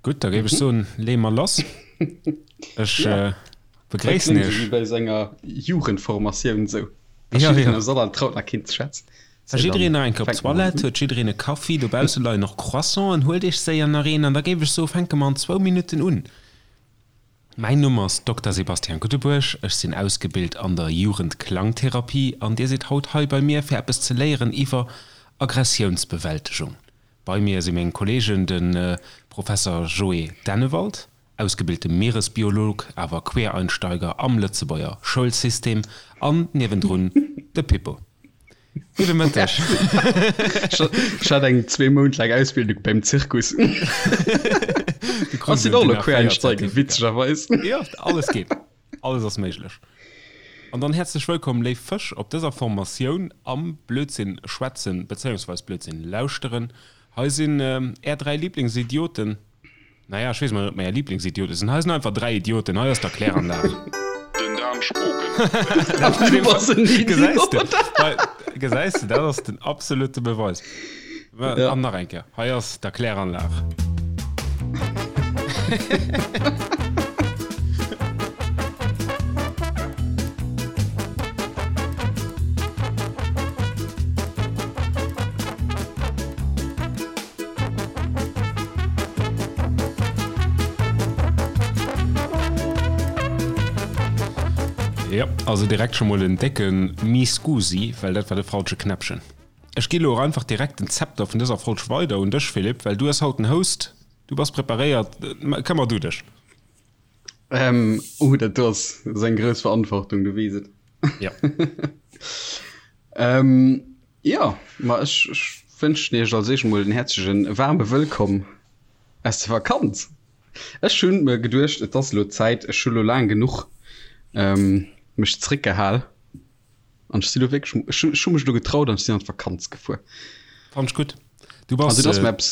Gutt, da géif ech soen, leeë mer lass. Ech begréissen Iech. Wéi bei senger Jugendformatioun esou. Ja, ja. Soll an traut nach keen ze schwätzen. War jiddereen nach eng Kéier op d'Toilette? Huet jiddereen e Kaffi? Dobausse leien och Croissanten. Huelt Iech séier nach een an da géif ech soen, fänke mer an zwou Minutten un. Mäin Numm ass Dokter Sebastian Guttebuerg, ech sinn ausgebilt an der Jugendklangtherapie an Dir sidd haut hei bei mir fir eppes ze léieren iwwer Aggressiounsbewältegung. Bei mir si meng Kollegen, de Professer Joé Dennewald, ausgebilte Mieresbiolog, awer Quereinsteiger am Lëtzebuerger Schoulsystem an niewendrun de Pippo. Gudde Mëtteg. Ech hat eng zwee Mount laang Ausbildung beim Zirkus. Ass sinn och elo Quereinsteiger, witzegerweis. Jo, alles geet. Alles ass méiglech. An dann häerzlech wëllkomm, léif Fësch, op dëser Formatioun am Blödsinn schwätzen, bezéiungsweis Blödsinn lauschteren. Hei sinn är 3 Lieblingsidioten. Naja, ech weess mol net, ob mer är Lieblingsidiote sinn. Hei sinn einfach 3 Idioten. Hei ass d'Erkläranlag. Den Dan Spogen. Du bass en Gesäis de? Idiot. Hei, gesäis de, dat ass den absolute Beweis. Ja. An nach eng Kéier, hei ass d'Erkläranlag. Jo, also direkt scho mol en décke Mi scusi, well dat war de falsche Knäppchen. Ech gi lo och einfach direkt den Zepter vun dëser Folg weider un dech, Philippe, well du hues haut den Host, du bass preparéiert, këmmer du dech. Ähm, oh, dat do ass eng grouss Verantwortung, du weess et. Ja. ähm, ja, ma ech, ech wënschen iech als éischt mol en häerzlechen waarme Wëllkomm aus der Vakanz. Ech hunn mir geduecht, et ass elo Zäit, ech hu lo laang genuch ähm, mech zréckgehal. An ech si lo wierklech, ech hu, ech hu mech lo getraut an ech sinn an d'Vakanz gefuer. Fand ech gutt. Du bass. Also, et ass mir eppes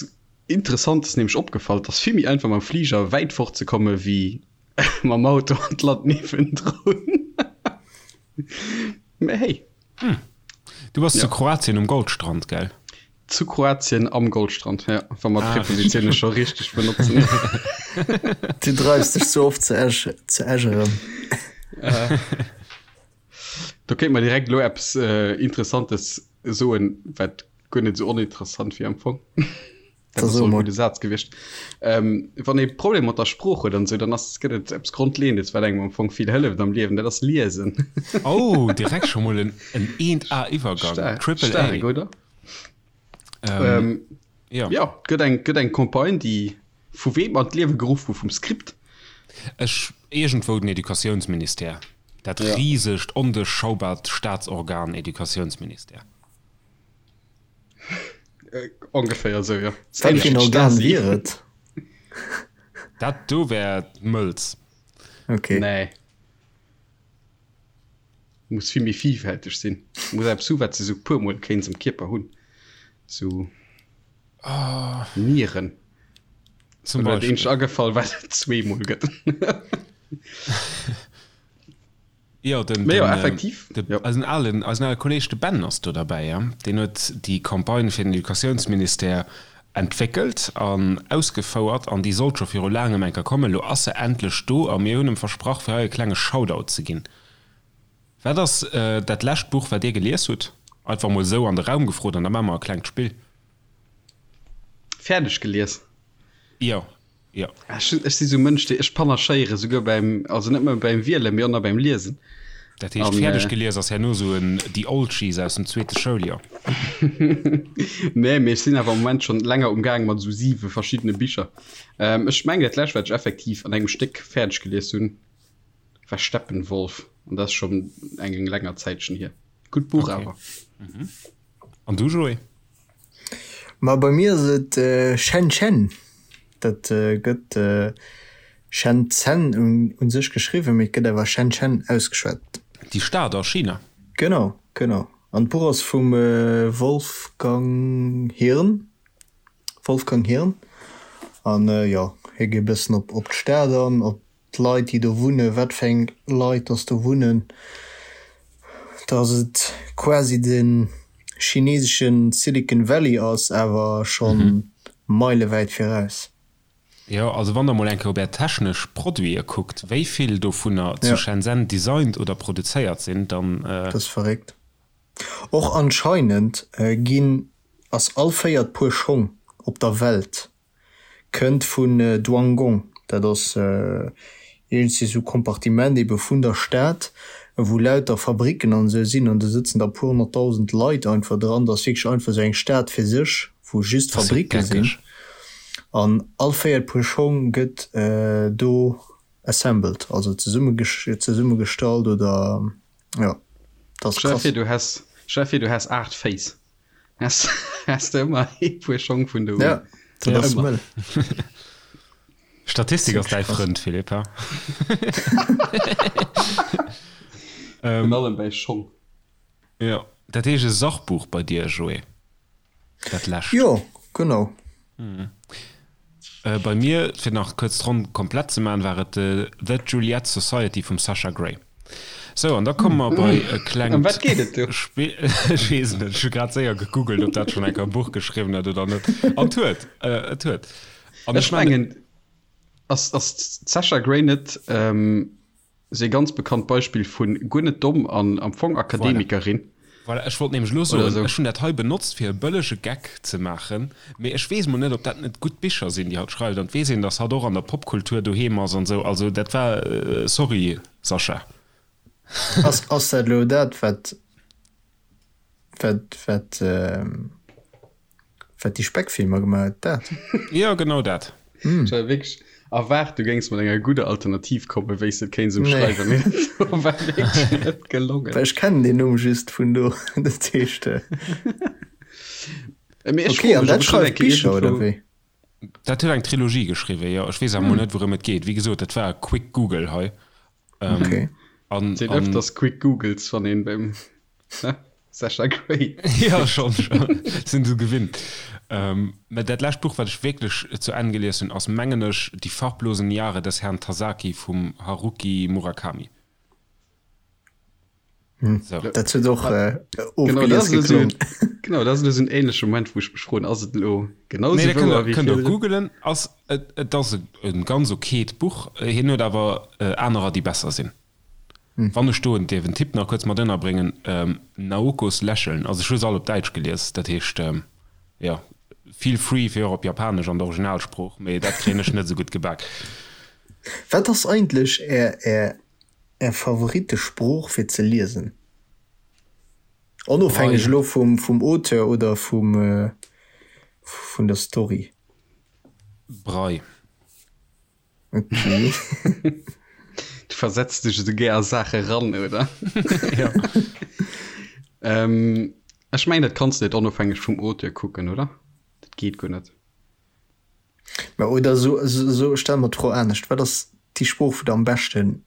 Interessantes nämlech opgefall, et ass vill méi einfach mam Fliger wäit fort ze komme wéi mam Auto an d'Land niewendrun. Mä hey. Hm. Du bass zu Kroatien um Goldstrand, gell? Zu Kroatien am Goldstrand, ja, wa mer d'Prepositioune scho richteg benotzen. Du dreifs dech ze oft zu Esch, zu Esch erëm. Do kéint mer direkt elo eppes Interessantes soen, wat guer net esou oninteressant wier am Fong. Dat ass och e gudde Saz gewiescht. Ähm, wann ee Problem mat der Sprooch huet an esou, dann ass, gëtt et eppes Grondleeëndes, wat engem am Fong vill hëlleft am Liewen, dat ass Liesen. Oh, direkt scho mol en 1A-Iwwergang. Staark, Triple A. staark, oder? Ähm, ja. Ja, gëtt eng, gëtt eng Campagne, déi vu weem an d'Liewe geruff gouf? Vum Script? Ech, iergendwou den Educatiounsministère. Dat Ja. risegt, onduerchschaubaart Staatsorgan Educatiounsministère. Äh, ongeféier esou, jo. Wat fir en Organ wier et? Dat do wär d'Mëlz. Okay. Nee. Muss vill méi vielfälteg sinn. Muss eppes hu wat se sou puer mol kéints am Kierper hunn. Sou Nieren. Zum Mir Beispill. eenzegt agefall wat et zweemol gëtt. Jo, den, Mee jo, den, effektiv, de, jo. eisen alen, eisen ale Kolleg, de Ben ass do derbäi, ja. Deen huet déi Campagne fir den Educatiounsministère entwéckelt an ausgefouert an déi sollt scho viru laangem eng Kéier kommen. Elo ass se endlech do a mir hunn em versprach, fir hei e klenge Shoutout ze ginn. Wat ass dat lescht Buch, wat Dir gelies hutt? Einfach mol esou an de Raum gefrot an da maache mer e klengt Spill. Fäerdeg gelies? Jo, jo. Ech, ech si sou Mënsch, dee, ech panachéiere souguer beim, also net nëmme beim Wielen, mee och nach beim Liesen. Dat heescht, An, fäerdeg gelies ass herno sou en The Oldschies aus dem zweete Schouljoer. Nee, mee ech sinn awer am Moment schonn länger umgaang mat esou siwe verschiddene Bicher. Ech mengen, dat lescht, wat ech effektiv an engem Stéck fäerdeg gelies hunn, war Steppenwolf an dat ass schonn eng länger Zäitchen hier. Gutt Buch Okay. awer. An du, Joé? Ma bei mir ass et Shenzhen. Dat gëtt Shenzhen u sech geschriwwen, mee et gëtt awer Shenzhen ausgeschwat. Déi Stad a China? Genau, genau. An d'Buch ass vum Wolfgang Hirn. Wolfgang Hirn. An jo, hie geet e bëssen op d'Stad an, op d'Leit déi do wunnen, wat fir eng Leit dass do wunnen, dass et quasi de chinesesche Silicon Valley ass, awer scho meilewäit viraus. Jo, also wann der mol eng Kéier op är technesch Produite kuckt, wéi vill dovunner zu Shenzhen designt oder produzéiert sinn, dann. Dat ass verréckt. Och anscheinend ginn, ass all véiert Puer Schong op der Welt kënnt vun Duangong, dat ass iergendwéi sou Kompartiment ebe vun der Stad, wou lauter Fabricken an esou sinn an do sëtzen da puer honnertdausend Leit einfach dran. Dat ass wierklech einfach sou eng Stad fir sech, wou just Fabricke sinn an all véiert Puer Schong gëtt do assembled, also zesummegestallt oder jo, dat ass krass. Stell dir vir, du häss, stell dir vir, du häss 8 Féiss. Häss, häss de ëmmer ee Puer Schong vun do un. Ja, dat ass mëll. Statistik ass däi Frënd, Philippe, ha? Virun allem bäi Schong. Jo, dat heescht e Sachbuch bei dir, Joé, dat lescht. Jo, genau. Bei mir, fir nach kuerz d'Ronn komplett ze maachen, war et The Juliet Society vum Sasha Grey. Sou, an da komme mer bei e klengt Ëm wat geet et do? Spill. Ech weess et net, ech hu grad séier gegoogelt, ob dat schonn eng Kéier e Buch geschriwwen huet oder net. An et huet, et huet. An ech mengen, ass d'Sasha Grey net Ass ee ganz bekannt Beispill vun guer net domm an am Fong Akademikerin. Voilà, ech wollt nämlech elo soen, ech hunn dat hei benotzt fir e bëllege Geck ze maachen, mee ech weess mol net, ob dat net gutt Bicher sinn, déi hatt schreift, an et weess een, datt hatt och an der Popkultur doheem ass an esou, also dat war, sorry Sascha. Ass ass dat elo dat wat wat wat Wat déi Speckfilmer gemaach huet, dat? Jo, genau dat. Ech hat wierklech erwaart, du géings mat enger gudder Alternativ kommen, wéi s de et kéints ëmschreiwen, mee dat war wierklech net gelongen. Well ech kennen deen Numm just vun do, dat heescht. Mee ech Ok, froe an mech, dat ob ech net schreift eng Kéier Bicher, oder iergendwou. wéi? Dat huet eng Trilogie geschriwwen, jo. Ech weess awer mol net, wourëm et geet. Wéi gesot, dat war e quick Google hei. Ok. An, Sinn an. ëfters quick Googles, wann een beim. Sasha Grey. Ja, schon, schon. Sinn se gewinnt. Ähm, mä dat lescht Buch, wat ech wierklech zu Enn gelies hunn, ass, mengen ech, Die farblosen Jahre des Herrn Tasaki vum Haruki Murakami. Hm. So. Dat huet och äh, ofgelies geklongen. Genau, dat ass elo sou en ähnleche Moment, wou ech mech froen, ass et elo genau Nee, sou dat kënnt wouer der, wéi kënnt der virdrun? googelen. Ass, et, et ass e, e ganz okayt Buch. Hien huet awer äh, anerer, déi besser sinn. Wann ech do en dierf en Tipp nach kuerz mat ënnerbréngen, Naokos Lächeln, also ech hu se all op Däitsch gelies, dat heescht, jo, feel free fir och op Japanesch an der Originalsprooch, mee dat kréien ech net esou gutt gebak. Wat ass eigentlech är är är Favorittesprooch fir ze liesen? Onofhängeg elo vum vum Auteur oder vum vun der Story. Brei. Okay. Du versetz dech esou gär a Saache ran, oder? Ja. ähm, ech mengen, dat kanns du net onofhängeg vum Auteur kucken, oder? Dat geet guer net. Mä oder so, so, so stelle mer d'Fro anescht, Wat ass déi Sprooch, wou der am beschten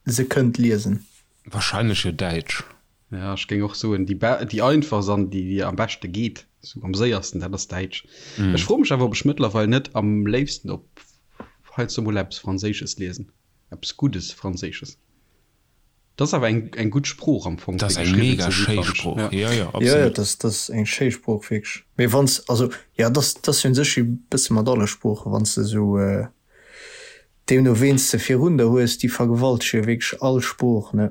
se kënnt liesen? Wahrscheinlech jo Däitsch. Ja, ech géing och soen, déi, déi einfachst an déi, déi am beschte geet, sou am séiersten, dat ass Däitsch. Mm. Ech froe mech awer, ob ech mëttlerweil net am léifsten op heiansdo mol eppes Franséisches liesen. Eppes Guddes Franséisches. Dat ass awer eng, eng gutt Sprooch am Fong, Dat ass eng mega schéi Sprooch. Ja, ja, absolut. Ja, ja, dat ass, dat ass eng schéi Sprooch, wierklech. Mee wann s, also, ja, dat ass, dat ass jo un sech e bësse mat alle Sproochen, wann s de esou, Deemno ween s de virun der hues, déi vergewaltege jo wierklech all Sprooch, ne?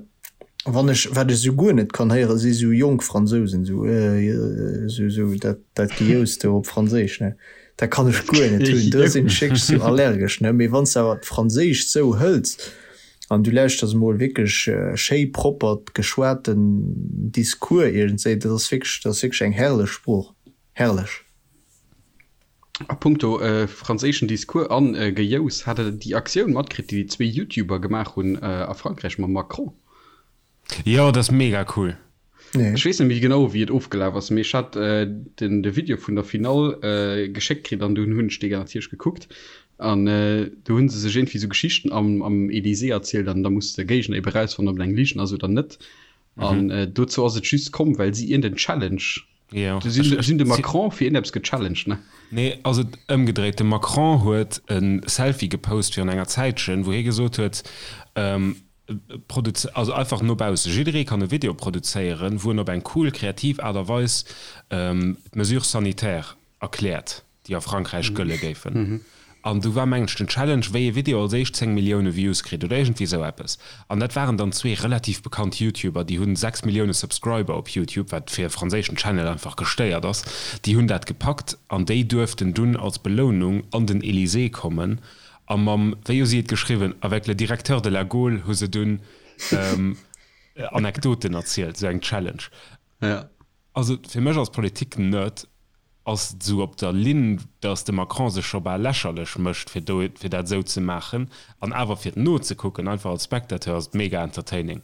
Wann ech, wat ech esou guer net kann héieren, si sou jonk Fransousen, sou esou, esou dat, dat Gejous do op Franséisch, ne? Dat kann ech guer net hunn, do sinn ech wierklech sou allergesch, ne? Mee wann s de awer d'Franséischt sou hëls an du lauschters emol wierklech schéi proppert geschwaten Discours iergendswéi, dat ass wierklech, dat ass wierklech eng herrlech Sprooch, herrlech. A punkto franséischen Discours an Gejous, hat der déi Aktioun matkritt, déi déi zwee YouTuber gemaach hunn a Frankräich mam Macron? Jo, dat ass mega cool. Ech weess net méi genau, wéi et ofgelaf ass, mee ech hat den de Video vun der Finall geschéckt kritt an dunn hunn ech dee natierlech gekuckt. An do hu se sech iergendwéi esou Geschichten am am Elysée erzielt an da muss de Géigner ebe rausfannen, ob et eng Ligen ass oder net. An dozou ass et just komm, well si iergend en Challenge Jo. Du sinn, sinn de Macron fir iergendeppes gechallenged, ne? Nee, ass et ëmgedréit. De Macron huet e Selfie gepost virun enger Zäitchen, wou hie gesot huet, produz, also einfach no bausse, jidderee kann e Video produzéieren, wou en op eng cool, kreativ Aart a Weis d'Mesures sanitaires erkläert, déi a Frankräich gëlle géifen. An du war mengen ech den Challenge, wéi ee Video als éischt 10 Millioune Views kritt oder iergendwéi esou eppes. An dat waren dann zwee relativ bekannt YouTuber, déi hunn 6 Millioune Subscriber op YouTube, wat fir e franséischen Channel einfach gestéiert ass. Déi hunn dat gepackt an déi duerften dunn als Belounung an den Elysée kommen a mam, wéi hu si et geschriwwen, avec le directeur de la Gaule hu se dunn Anekdoten erzielt, esou eng Challenge. Also fir mech als Politik-Nerd ass et esou op der Linn, datt de Macron sech scho bal lächerlech mécht, fir do, fir dat esou ze maachen. An awer fir et nozekucken, einfach als Spectateur, ass et mega entertaining.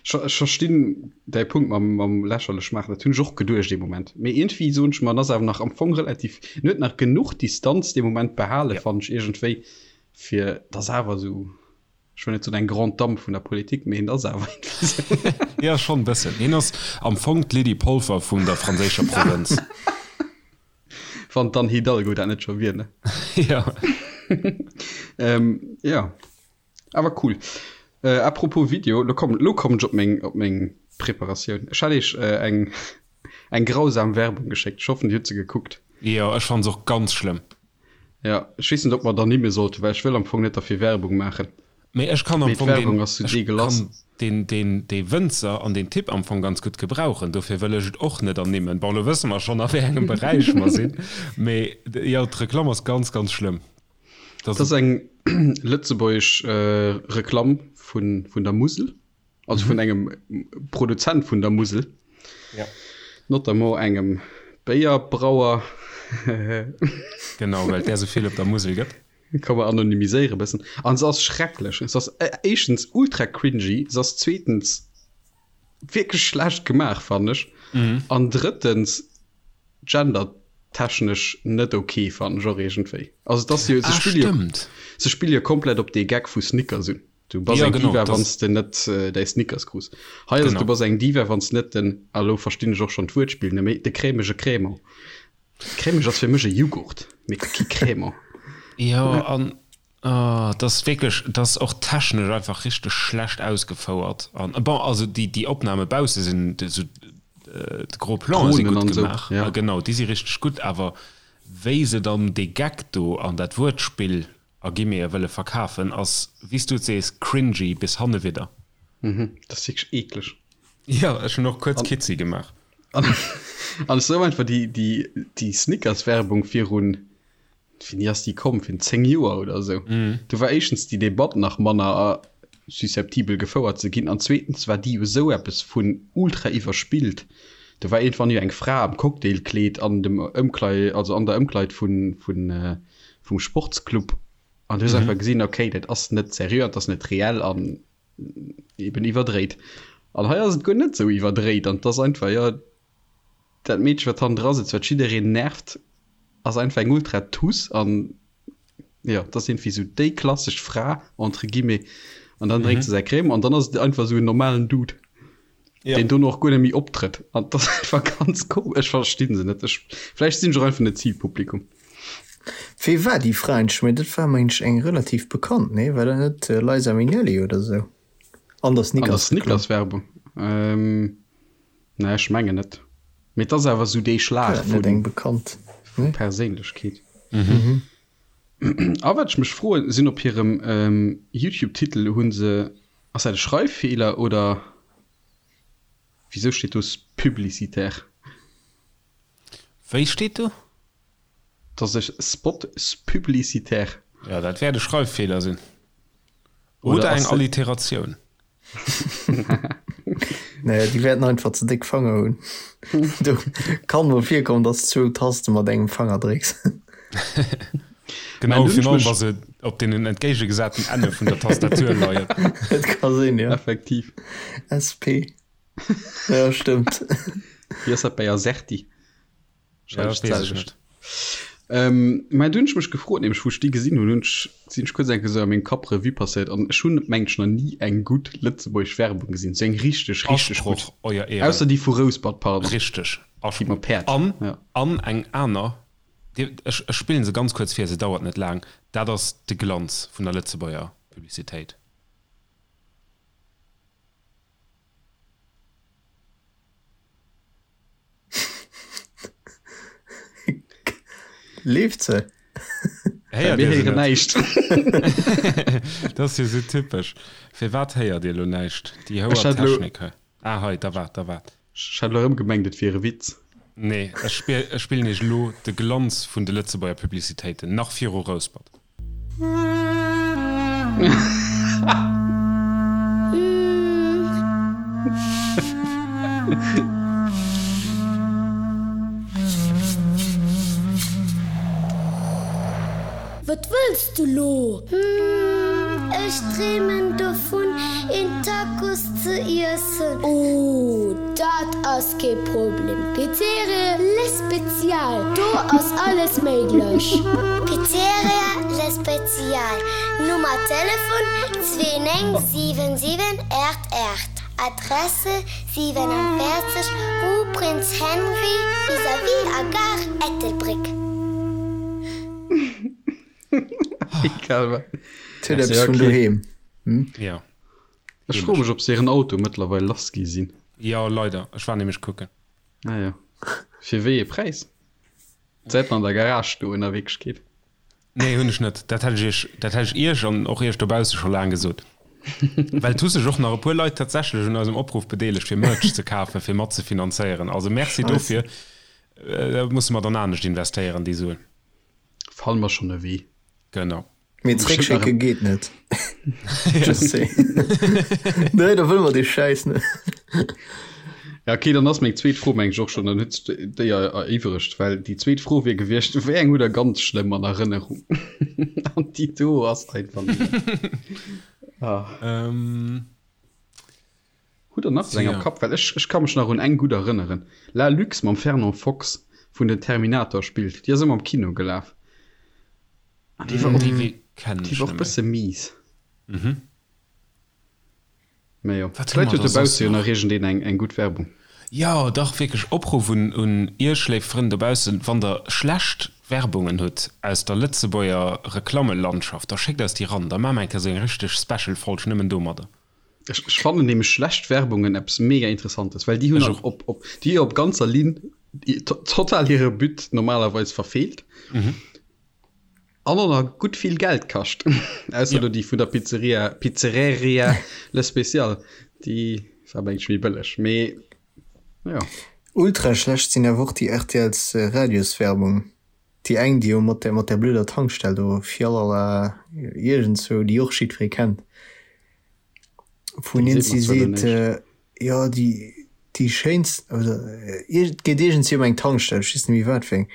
Ech verstinn däi Punkt mam, mam lächerlech maachen, dat hunn ech och geduecht ee Moment. Mee iergendwéi soen ech mer, en ass awer nach am Fong relativ, en huet nach genuch Distanz dee Moment behale, fannen ech iergendwéi, fir dass awer esou. Ech wëll net soen eng Grande Dame vun der Politik, mee hien ass awer iergendwéi esou. Jo, schonn e bëssen. Hien ass am Fong d'Lydie Polfer vun der franséischer Provënz. Wann d'Anne Hidalgo dat net scho wier, ne? Jo. Jo, awer cool. À propos Video, lo kommen, lo kommen ech op meng, op meng Preparatioun. Ech hat iech eng, eng grausam Werbung geschéckt. Ech hoffen, Dir hutt se gekuckt. Jo, ech fanne se och ganz schlëmm. Ja, ech weess net, ob mer et ernimme sollten, well ech wëll am Fong net derfir Werbung maachen. Mee ech kann am Fong deen, ech kann deen, deen, dee Wënzer an deen Typ am Fong ganz gutt gebrauchen. Dofir wëll ech et och net ernimmen. Bon, elo wësse mer schonn, a wéi engem Beräich mer sinn. Mee jo, d'Reklamm ass ganz, ganz schlëmm. Dat ass eng lëtzebuergesch Reklamm vun, vun der Musel. Also vun engem Produzent vun der Musel. Ja. Notamment engem Béierbrauer. Genau, well et där esou vill op der Musel gëtt. Kann mer anonymiséiere bëssen. An se ass schrecklech. Se ass éischtens ultra cringy, se ass zweetens wierklech schlecht gemaach, fannen ech. An drëttens gendertechnesch net ok, fannen ech och iergendwéi. Also et ass jo, se Ah, spille jo, stëmmt. se spille jo komplett op dee Gag vu Snickers un. Du bass Ja, eng genau, Diva, das wann s de net däi Snickers krus. Hei ass et, Genau. du bass eng Diva, wann s net den, a lo verstinn ech och schonn d'Wuertspill net méi, de cremege Crémant. Cremeg ass fir mech e Jughurt, mee kee Crémant. Jo, an oh, dat ass wierklech, dat ass och technesch einfach richteg schlecht ausgefouert. An bon, also déi, déi Opname bausse sinn esou, de gros Planen si Dronen gutt an esou, gemaach. ja. Genau, déi si richteg gutt, awer wéi se dann dee Gag do an dat Wuertspill a Guillemete wëlle verkafen, ass, wéi s du et sees, cringy bis hannewidder. Mhm, dat ass wierklech eekleg. Jo, ech hunn och kuerz Kitzi gemaach. An an ech sou einfach déi, déi, déi Snickers-Werbung virun, wéini ass déi komm, virun 10 Joer oder esou. Do war éischtens déi Debatt nach manner susceptibel gefouert ze ginn an zweetens war déi jo esou eppes vun ultra iwwerspillt. Do war iergendwann jo eng Fra am Cocktailkleed an dem Ëmklei, also an der Ëmkleid vun, vun, vum Sportsclub an du hues einfach gesinn, okay, dat ass net seriö an dat ass net reell an eben iwwerdréit. An hei ass et guer net esou iwwerdréit an et ass einfach, jo, dat Meedche wat hannendra sëtzt, wat jiddereen nervt, ass einfach eng ultra Tuss an jo, et ass iergendwéi esou déi klassesch Fra entre guillemets an dann drénkt se säi Crème an dann ass et einfach esou en normalen Dude. Ja. Deen dono och guer net méi optrëtt. An dat ass einfach ganz komesch. Ech verstinn se net. Ech, vläicht sinn ech och einfach net Zilpublikum. Wee war déi Fra eigentlech? Mä dat war mengen ech eng relativ bekannt, nee? War dat net Liza Minnelli oder sou? An der An der Snickers-Reklamm. Snickers-Werbung? Ähm, nee, ech mengen net. Mee et ass awer sou dee War Schlag dat net eng vu, bekannt? vu Nee? Perséinlechkeet. A wat ech mech froen, sinn op hirem YouTube-Titel hu se Ass dat e Schreiffeeler oder wisou steet do publicitaire? Wéi steet do? Dass ech Spot publicitaire. Jo, dat wäert e Schreiffeeler sinn. Oder eng Alliteratioun. Nee, déi wäerten einfach ze déck Fanger hunn. Do kann mol virkommen, dass de zwou Taste mat engem Fanger drécks. Genau, virun allem wa se op deenen entgéigegesaten Enne vun der Tastatur leien. Et ka sinn, jo. Effektiv. SP. Ja, stëmmt. Wéi ass dat bei Azerty? Ja, Wahrscheinlech weess ech d'selwecht. net. Ähm, mä du hunn ech mech gefrot, nämlech wou ech déi gesinn hunn, hunn ech, sinn ech kuerz eng Kéier sou a mengem Kapp Revue passéiert an ech hunn, mengen ech, nach ni eng gutt lëtzebuergesch Werbung gesinn, sou eng richteg, richteg gutt. Asproch, Euer Ehren. Ausser déi vu Rouspert, pardon. Richteg, Déi mam Asproch. Päerd, An, ja. an eng aner, Dir, ech, ech spillen se ganz kuerz vir, se dauert net laang, dat ass de Glanz vun der Lëtzebuerger Publicitéit. Leeft se? Héiert Mir Dir se héieren net? näischt. Dat ass jo sou typesch. Firwat héiert Dir elo näischt? Déi Ech houer hat elo. Technik hei. Ah hei, da waart, da waart. Ech hat elo erëm gemengt, et wier e Witz. Nee, ech spillen iech elo de Glanz vun de Lëtzebuerger Publicitéiten, nach viru Rouspert. Wat wëlls du lo? Hm, ech dreemen dovun een Tacos ze iessen. Oh, dat ass kee Problem. Pizzeria Le Spezial, do ass alles méiglech. Pizzeria Le Spezial, Nummer Telefon 2977 88, Adresse 47 rue Prince Henri vis-à-vis a Gare Ettelbréck. Egal wat. Huet eppes vun doheem. Jo. Ech froe mech, ob se hiren Auto mëttlerweil lass gi sinn. Jo, leider. Ech war nämlech kucken. Ah jo. Fir wéi ee Präis? Säit an der Garage stoen a Wierklechkeet. Nee, hunn ech net. Dat hätt ech iech, dat hätt ech iech an och iech dobausse scho laang gesot. Well et hu sech och nach e puer Leit tatsächlech un eisem Opruff bedeelegt, fir Merch ze kafen, fir mat ze finanzéieren. Also Merci dofir. Da musse mer dann anescht investéieren, déi Suen. Fanne mer schonn e Wee. Genau. Mee zréckschécke geet net. Just saying. Nee, da wëlle mer dee Schäiss net. Ja, okay, dann ass meng zweet Fro meng ech och schonn, dann huet sech déi eriwweregt, well déi zweet Fro wier gewiescht, wéi eng hutt der ganz schlëmm an Erënnerung? An déi do ass einfach nëmmen. Ah. Ähm. Hutt der nach esou eng am Kapp? Well ech, ech ka mech nach un eng gutt erënneren, La Luxe mam Fernand Fox, wou en den Terminator spillt. Déi ass ëmmer am Kino gelaf. An déi war och, Déi kennen déi ech war och net méi. bësse mies. Mhm. Mä jo, Wat hu vläit mer huet da soss dobausse jo nach? nach iergendeen eng, eng gutt Werbung. Jo, dach, wierklech Opruff un, un Iech, léif Frënn dobaussen, Wann der schlecht Werbungen hutt aus der Lëtzebuerger Reklammelandschaft, da schéckt eis déi ran, da maache mer eng Kéier esou eng richteg Special-Folg nëmmen domadder. Ech, ech fannen nämlech schlecht Werbungen eppes mega Interessantes, well déi hunn Ech an och. op, op, déi op ganzer Linn total hire But normalerweis verfeelt. Mhm. An och nach gutt vill Geld kascht. Ausser Ja. do déi vun der Pizzeria, Pizzereria Le Special, déi war mengen ech méi bëlleg. Mee jo. Ultra schlecht sinn awer och déi RTLs Radioswerbung. Déi eng déi jo mat der mat der blöder Tankstell do fialala iergendzwou, déi och jiddweree kennt, wou Déi een seet si mer zwar elo seet, näischt. jo déi déi schéinst oder et geet iergendwéi ëm eng Tankstell, ech weess net méi wat fir eng,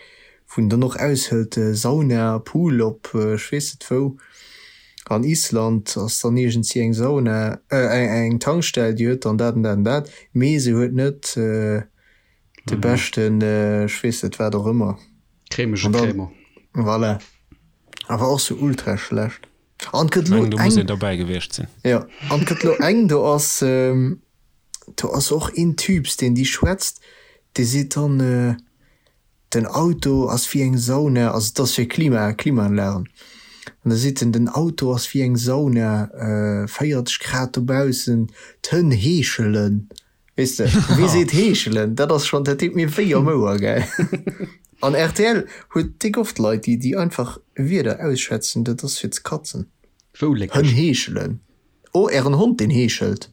wou en dann och aushëlt, Sauna, Pool op ech weess net wou, an Island ass dann iergendwéi eng Sauna, eng Tankstell, déi huet dann dat an dat an dat, mee se huet net de beschten ech weess net wat och ëmmer. Cremege An dann, Cremant. voilà. Awer och sou ultra schlecht. An et gëtt Ech lo mengen, do muss eng, een derbäi gewiescht sinn. jo, an et gëtt lo eng, do ass, do ass och een Typs, deen déi schwätzt, dee seet dann, den Auto ass wéi eng Sauna, also et ass fir Klima, Klimaanlagen, an da seet en, den Auto ass wéi eng Sauna, 40 Grad dobaussen, d'Hënn heeschelen. Weess de, wee seet heeschelen? Dat ass schonn, dat deet mir wéi am Ouer, gell? An rtl huet déck oft Leit, déi, déi einfach Wierder ausschwätzen, dat ass fir ze katzen. Wou léckeg? Hënn heeschelen. Oh, ären Hond, deen heeschelt.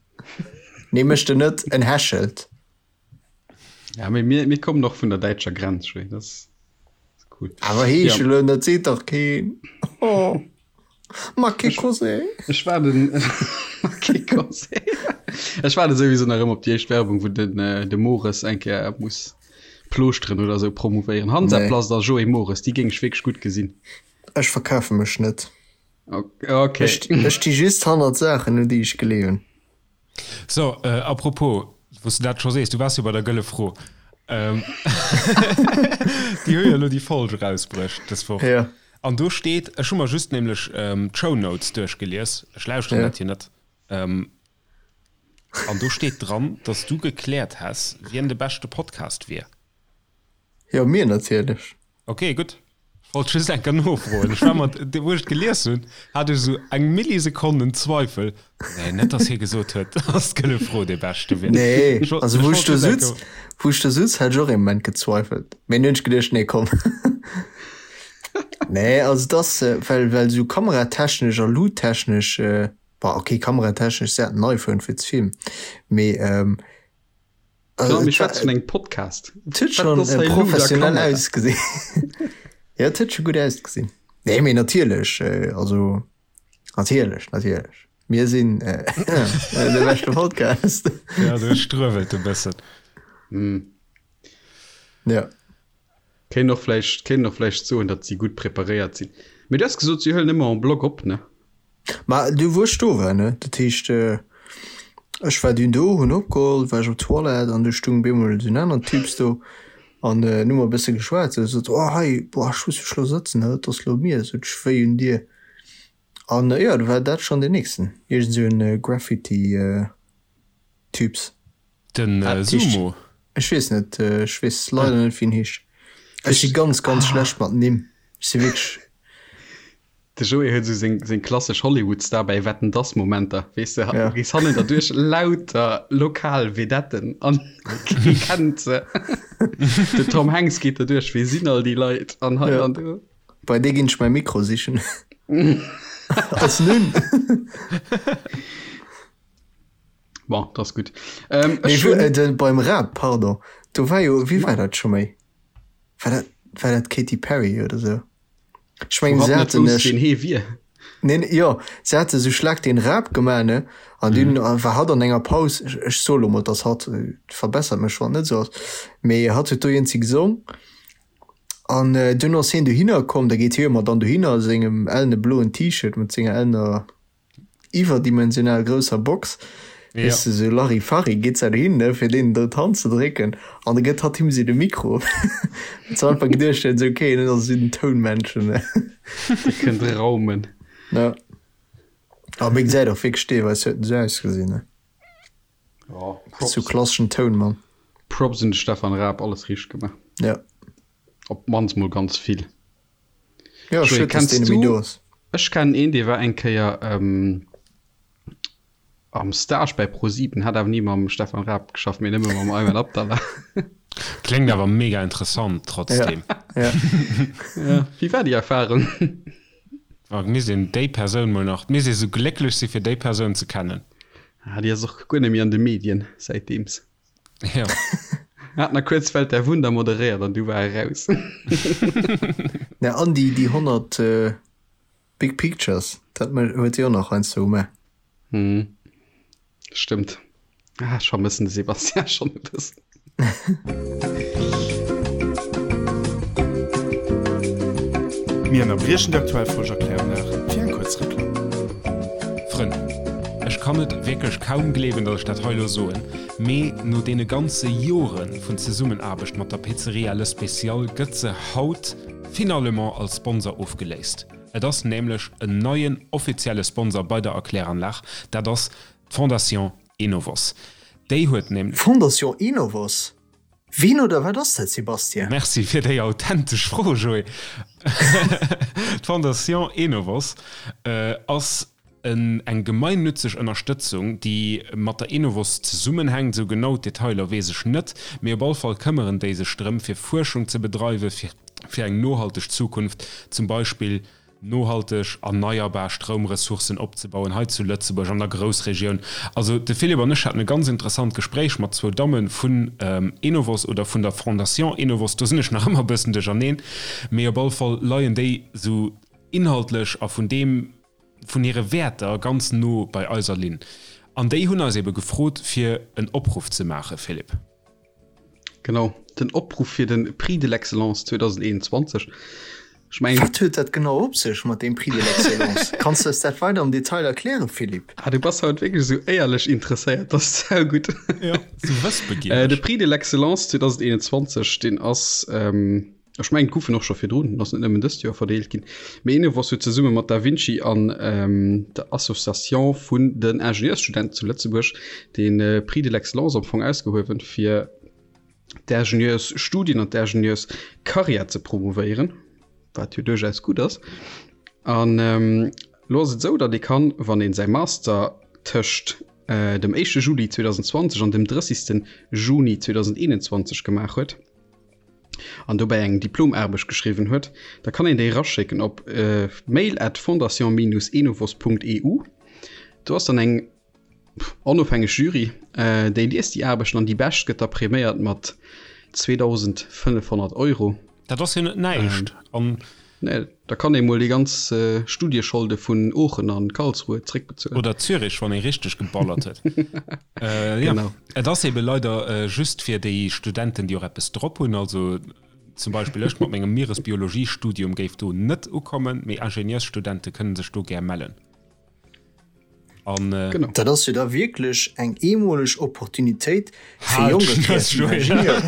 Nee, mécht en net, en hechelt. Ja, mee mir, mir kommen och vun der däitscher Grenz, schwéi, dat ass cool. Awer heeschelen, dat seet dach keen. Oh. Ma che cos'è? Ech waarden Ma che cos'è? Ech waarde souwisou nach ëmmer op déi éischt Werbung, wou den äh, de Mores eng Kéier muss Plooschteren oder sou promouvéieren. Hansaplast a Joé Mores, déi géing ech wierklech gutt gesinn. Ech verkafe mech net. Okay. Ech, ech sti just hannert Saachen, un déi ech gleewen. So, äh, apropos, wou s de dat scho sees, du waars jo bei der Gëlle Fro. Ähm, déi hu jo elo déi Folg erausbruecht dës Woch. Ja. An do steet, ech hu mer just nämlech ähm, d'Shownotes duerchgelies, ech lauschteren Ja. dat jo net. Ähm, an do steet dran, dass du gekläert häss, wien de beschte Podcast wier. Jo, mir natierlech. Ok, gutt. Ech wollt just eng Kéier nofroen. Ech war mer, wou ech et gelies hunn, hat ech esou eng Millisekonn en Zweifel. Nee, net dass hie gesot huet, dass d'Gëlle Fro dee Beschte wier. Nee, Ech wollt, also ech wou ech wollt do just eng sutz, Kéier. wou ech do sutz, hat ech och ee Moment gezweifelt. Mee dunn hunn ech geduecht, nee komm. Nee, also dass, well, well sou kameratechnesch a luuttechnesch, bon ok, kameratechnesch, se hat en iPhone fir ze filmen, mee Also, mir schwätzen vun engem Podcast. Et huet schon äh, professionell ausgesinn. ja, et huet schon gutt ausgesinn. Nee, mee natierlech, äh, also natierlech, natierlech. Mir sinn äh, de beschte Podcast. ja, du struewelt e bëssen. Mm. Ja. Kéint och vläicht, kéint och vläicht soen, datt si gutt preparéiert sinn. Mee du has gesot, si huelen ëmmer en bloc op, ne? Ma du wou ech do war, ne, dat heescht, ech war dunn do, hunn opgeholl, war ech op d'Toilette an du stung bemol esou en aneren Typs do an hunn mer e bësse geschwat. Sou sot, oh hei, boah, ech muss mech lo sëtzen, dat ass lo mir, sot ech, wéi un dir. An jo, du war dat schonn deen nächsten, iergend esou en Graffiti Typs. Den Sumo? Ech weess net, ech weess leider net wéi en heescht. Ech si ganz ganz schlecht mat Nimm, ech si wierklech. De Joé huet esou seng seng klassesch Hollywood-Star bei Wetten dass Momenter, weess de, du gees hannen derduerch lauter lokal Vedetten an kee kennt se. Den Tom Hanks geet derduerch, wie sinn all déi Leit an hei an do. Bei dee ginn ech mäi Mikro sichen. Ass nun. Bon, dat ass gutt. Ähm, ech hunn. Äh, de, beim Rap, pardon, do war jo, wéi war dat scho méi? War dat, war dat Katy Perry oder sou? Ech mengen, se haten e. Ween hee wier. Nee, nee, jo, se hate sou Schlag den Rap gemaach, ne? An dunn mhm. war hatt an enger Paus, ech, ech soe lo mol, dass hatt, äh, verbessert mech, wann et net sou ass, mee hatt huet do iergendwéi gesong. An äh, dunn ass hien dohinner komm, da geet hie jo mat dann dohinner a sengem ellene bloen T-Shirt mat senger ellener iwwerdimensional grousser Box, Ja. weess de, sou Larifari, geet se dohin, ne, fir deenen do d'Hand ze drécken, an da gëtt hatt him sou de Mikro. Huet se einfach geduecht, huet, sou, okay, dat ass esou den Tounmännchen, ne. Dee kënnt raumen. Ja. A mee gesäit och wierklech deelweis huet en sou ausgesinn, ne. Ja, Sou Props. klasseschen Tounmann. Props un de Stefan Raab, alles richteg gemaach. Ja. Op d'mannst mol ganz vill. Ja, Joé, schued, dass kenns deen net méi du do ass. Ech kennen een, dee war eng Kéier ähm, am Stage bei ProSieben, hat awer ni mam Stefan Raab geschafft, mee nëmme mam Ayman Abdallah. Kléngt awer mega interessant trotzdem. Ja, ja. Ja, wéi war déi Erfahrung? Oh, misst een déi Persoun mol nach, misst ee sou glécklech si fir déi Persoun ze kennen. Ah, déi ass och guer net méi an de Medien säitdeems. Ja. Hat nach kuerz Welt der Wunder moderéiert an du war e raus. Na an déi déi 100 äh, Big Pictures, dat huet si och nach heiansdo gemaach. Hm. Stëmmt. Ah, ech vermëssen de Sebastian schonn e bëssen. Mir ënnerbriechen déi aktuell Folg Erklärunlag fir eng kuerz Reklamm. Frënn, ech kann et wierklech kaum gleewen, datt ech dat hei elo soen, mee no deene ganze Jore vun Zesummenaarbecht mat der Pizzeria Le Special gëtt se haut finalement als Sponsor ofgeléist. Et ass nämlech en neien offizielle Sponsor bei der Erkläranlag, dat ass d'Fondation Enovos. Déi huet nämlech. Fondation Enovos? Ween oder wat ass dat, Sébastien? Merci fir déi authentesch Fro, Joé. D'Fondation Enovos ass eng gemeinnützeg Ënnerstëtzung, déi mat der Enovos zesummenhänkt. Esou genau d'Detailer weess ech net, mee op all Fall këmmeren déi sech drëm, fir Fuerschung ze bedreiwe fir eng nohalteg Zukunft, zum Beispill nohalteg erneierbar Stroumressourcen opzebauen hei zu Lëtzebuerg an der Groussregioun. Also de Philippe an ech haten e ganz interessant Gespréich mat zwou Damme vun Enovos oder vun der Fondation Enovos, do sinn ech nach ëmmer e bëssen duercherneen, mee op alle Fall leien déi esou inhaltlech a vun deem, vun hire Wäerter ganz no bei eiser Linn. An déi hunn eis ebe gefrot, fir en Opruff ze maachen, Philippe. Genau, den Opruff fir de Prix de l'excellence 2021. Ech mengen. Wat huet dat genau op sech mat deem Prix de l'excellence? Kanns du eis dat weider am Detail erklären, Philippe? Ah, du bass haut wierklech esou éierlech interesséiert, dat ass saugutt. Jo, esou wëssbegiereg. De Prix de l'excellence 2021, deen ass, ech mengen, et gouf en och scho virdrun, en ass net nëmmen dëst Joer verdeelt ginn, mee Enovos huet zesumme mat Da Vinci an der Association vun den Ingenieursstudenten zu Lëtzebuerg de Prix de l'excellence am Fong ausgehuewen, fir d'Ingenieursstudien an d'Ingenieurscarrière ze promouvéieren, wat jo duerchaus gutt ass. An elo ass et esou, datt ee kann, wann ee säi Master tëscht dem éischte Juli 2020 an dem 30. Juni 2021 gemaach huet. An dobäi eng Diplomaarbecht geschriwwen huet, da kann een déi eraschécken op mail at fondation-enovos.eu. Do ass dann eng onofhängeg Jury, déi liest déi Aarbechten an déi bescht gëtt da priméiert mat 2.500 Euro. Dat ass jo net näischt. An Nee, da kann ee mol déi ganz Studiescholde vun Oochen an Karlsruhe zréckbezuelen. Oder Zürich, wann ee richteg geballert huet. Jo, Genau. et ass ebe leider just fir déi Studenten, déi och eppes drop hunn. Also zum Beispill ech mat mengem Mieresbiologiestudium géif do net ukommen, mee Ingenieursstudente kënne sech do gär mellen. An, äh, genau. Dat ass jo da wierklech eng eemoleg Opportunitéit fir jonke kreativ Ingenieuren.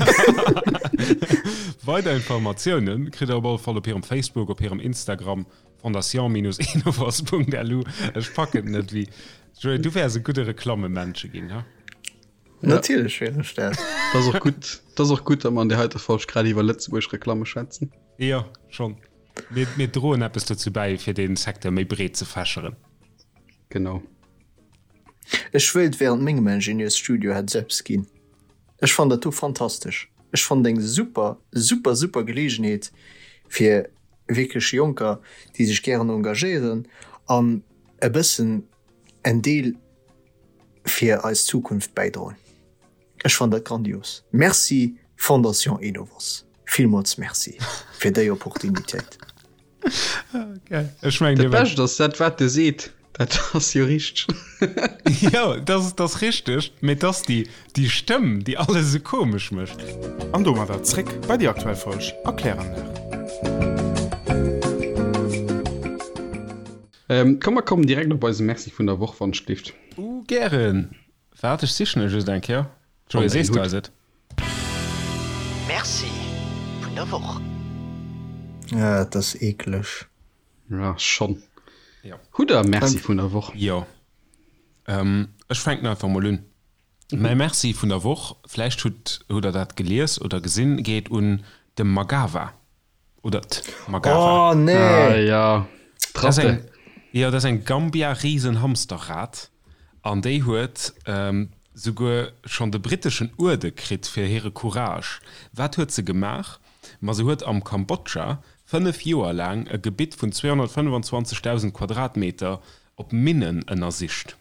Weider Informatiounen kritt der op alle Fall op hirem Facebook, op hirem Instagram fondation-enovos.lu. Ech packen et net wéi. Joé, du wäers e gudde Reklammemännche ginn, ha? Natierlech wier ech dat. Dat ass och gutt, dat ass och gutt, datt mer an där heiter Folg grad iwwer Lëtzebuerg Reklamme schwätzen. Jo, schonn. Mir, mir droen eppes dozou bäi, fir dee Secteur méi breet ze fächeren. Genau. Ech wéilt während mengem Ingenieursstudio hätt et eppes ginn. Ech fannen dat do fantastesch. Ech fannen et eng super, super, super Geleegenheet fir wierklech Jonker, déi sech gären engagéieren an e bëssen en Deel fir eis Zukunft bäidroen. Ech fannen dat grandios. Merci Fondation Enovos, villmools Merci fir déi Opportunitéit. Ech mengen, Dat Bescht ass, dat wat e seet, dat ass jo richteg. Jo, dat ass richteg, mee et ass déi déi Stëmm, déi alles esou komesch mécht. An domadder zréck bei déi aktuell Folg a Kläranlag. Komm mer kommen direkt op eise Merci vun der Woch, wann ech gelift. Uh, gären. Waart, ech sichen e just eng Kéier. Joé, sees du eis et? Merci vun der Woch. Ah, et ass eekleg. Ja, schonn. Jo. Hutt der e Merci vun der Woch? Jo. Ech fänken einfach mol un. Mäi Merci vun der Woch, vläicht hutt hutt der dat gelies oder gesinn, geet un de Magawa. Oder d'Magawa. Oh nee! Ah ja, Dat ass eng, jo, dat ass eng Gambia-Riesenhamsterrat an déi huet souguer schonn de britteschen Uerde kritt fir hire Courage. Wat huet se gemaach? Ma se huet am Kambodscha 5 Joer laang e Gebitt vun 225.000 Quadratmeter op Minnen ënnersicht.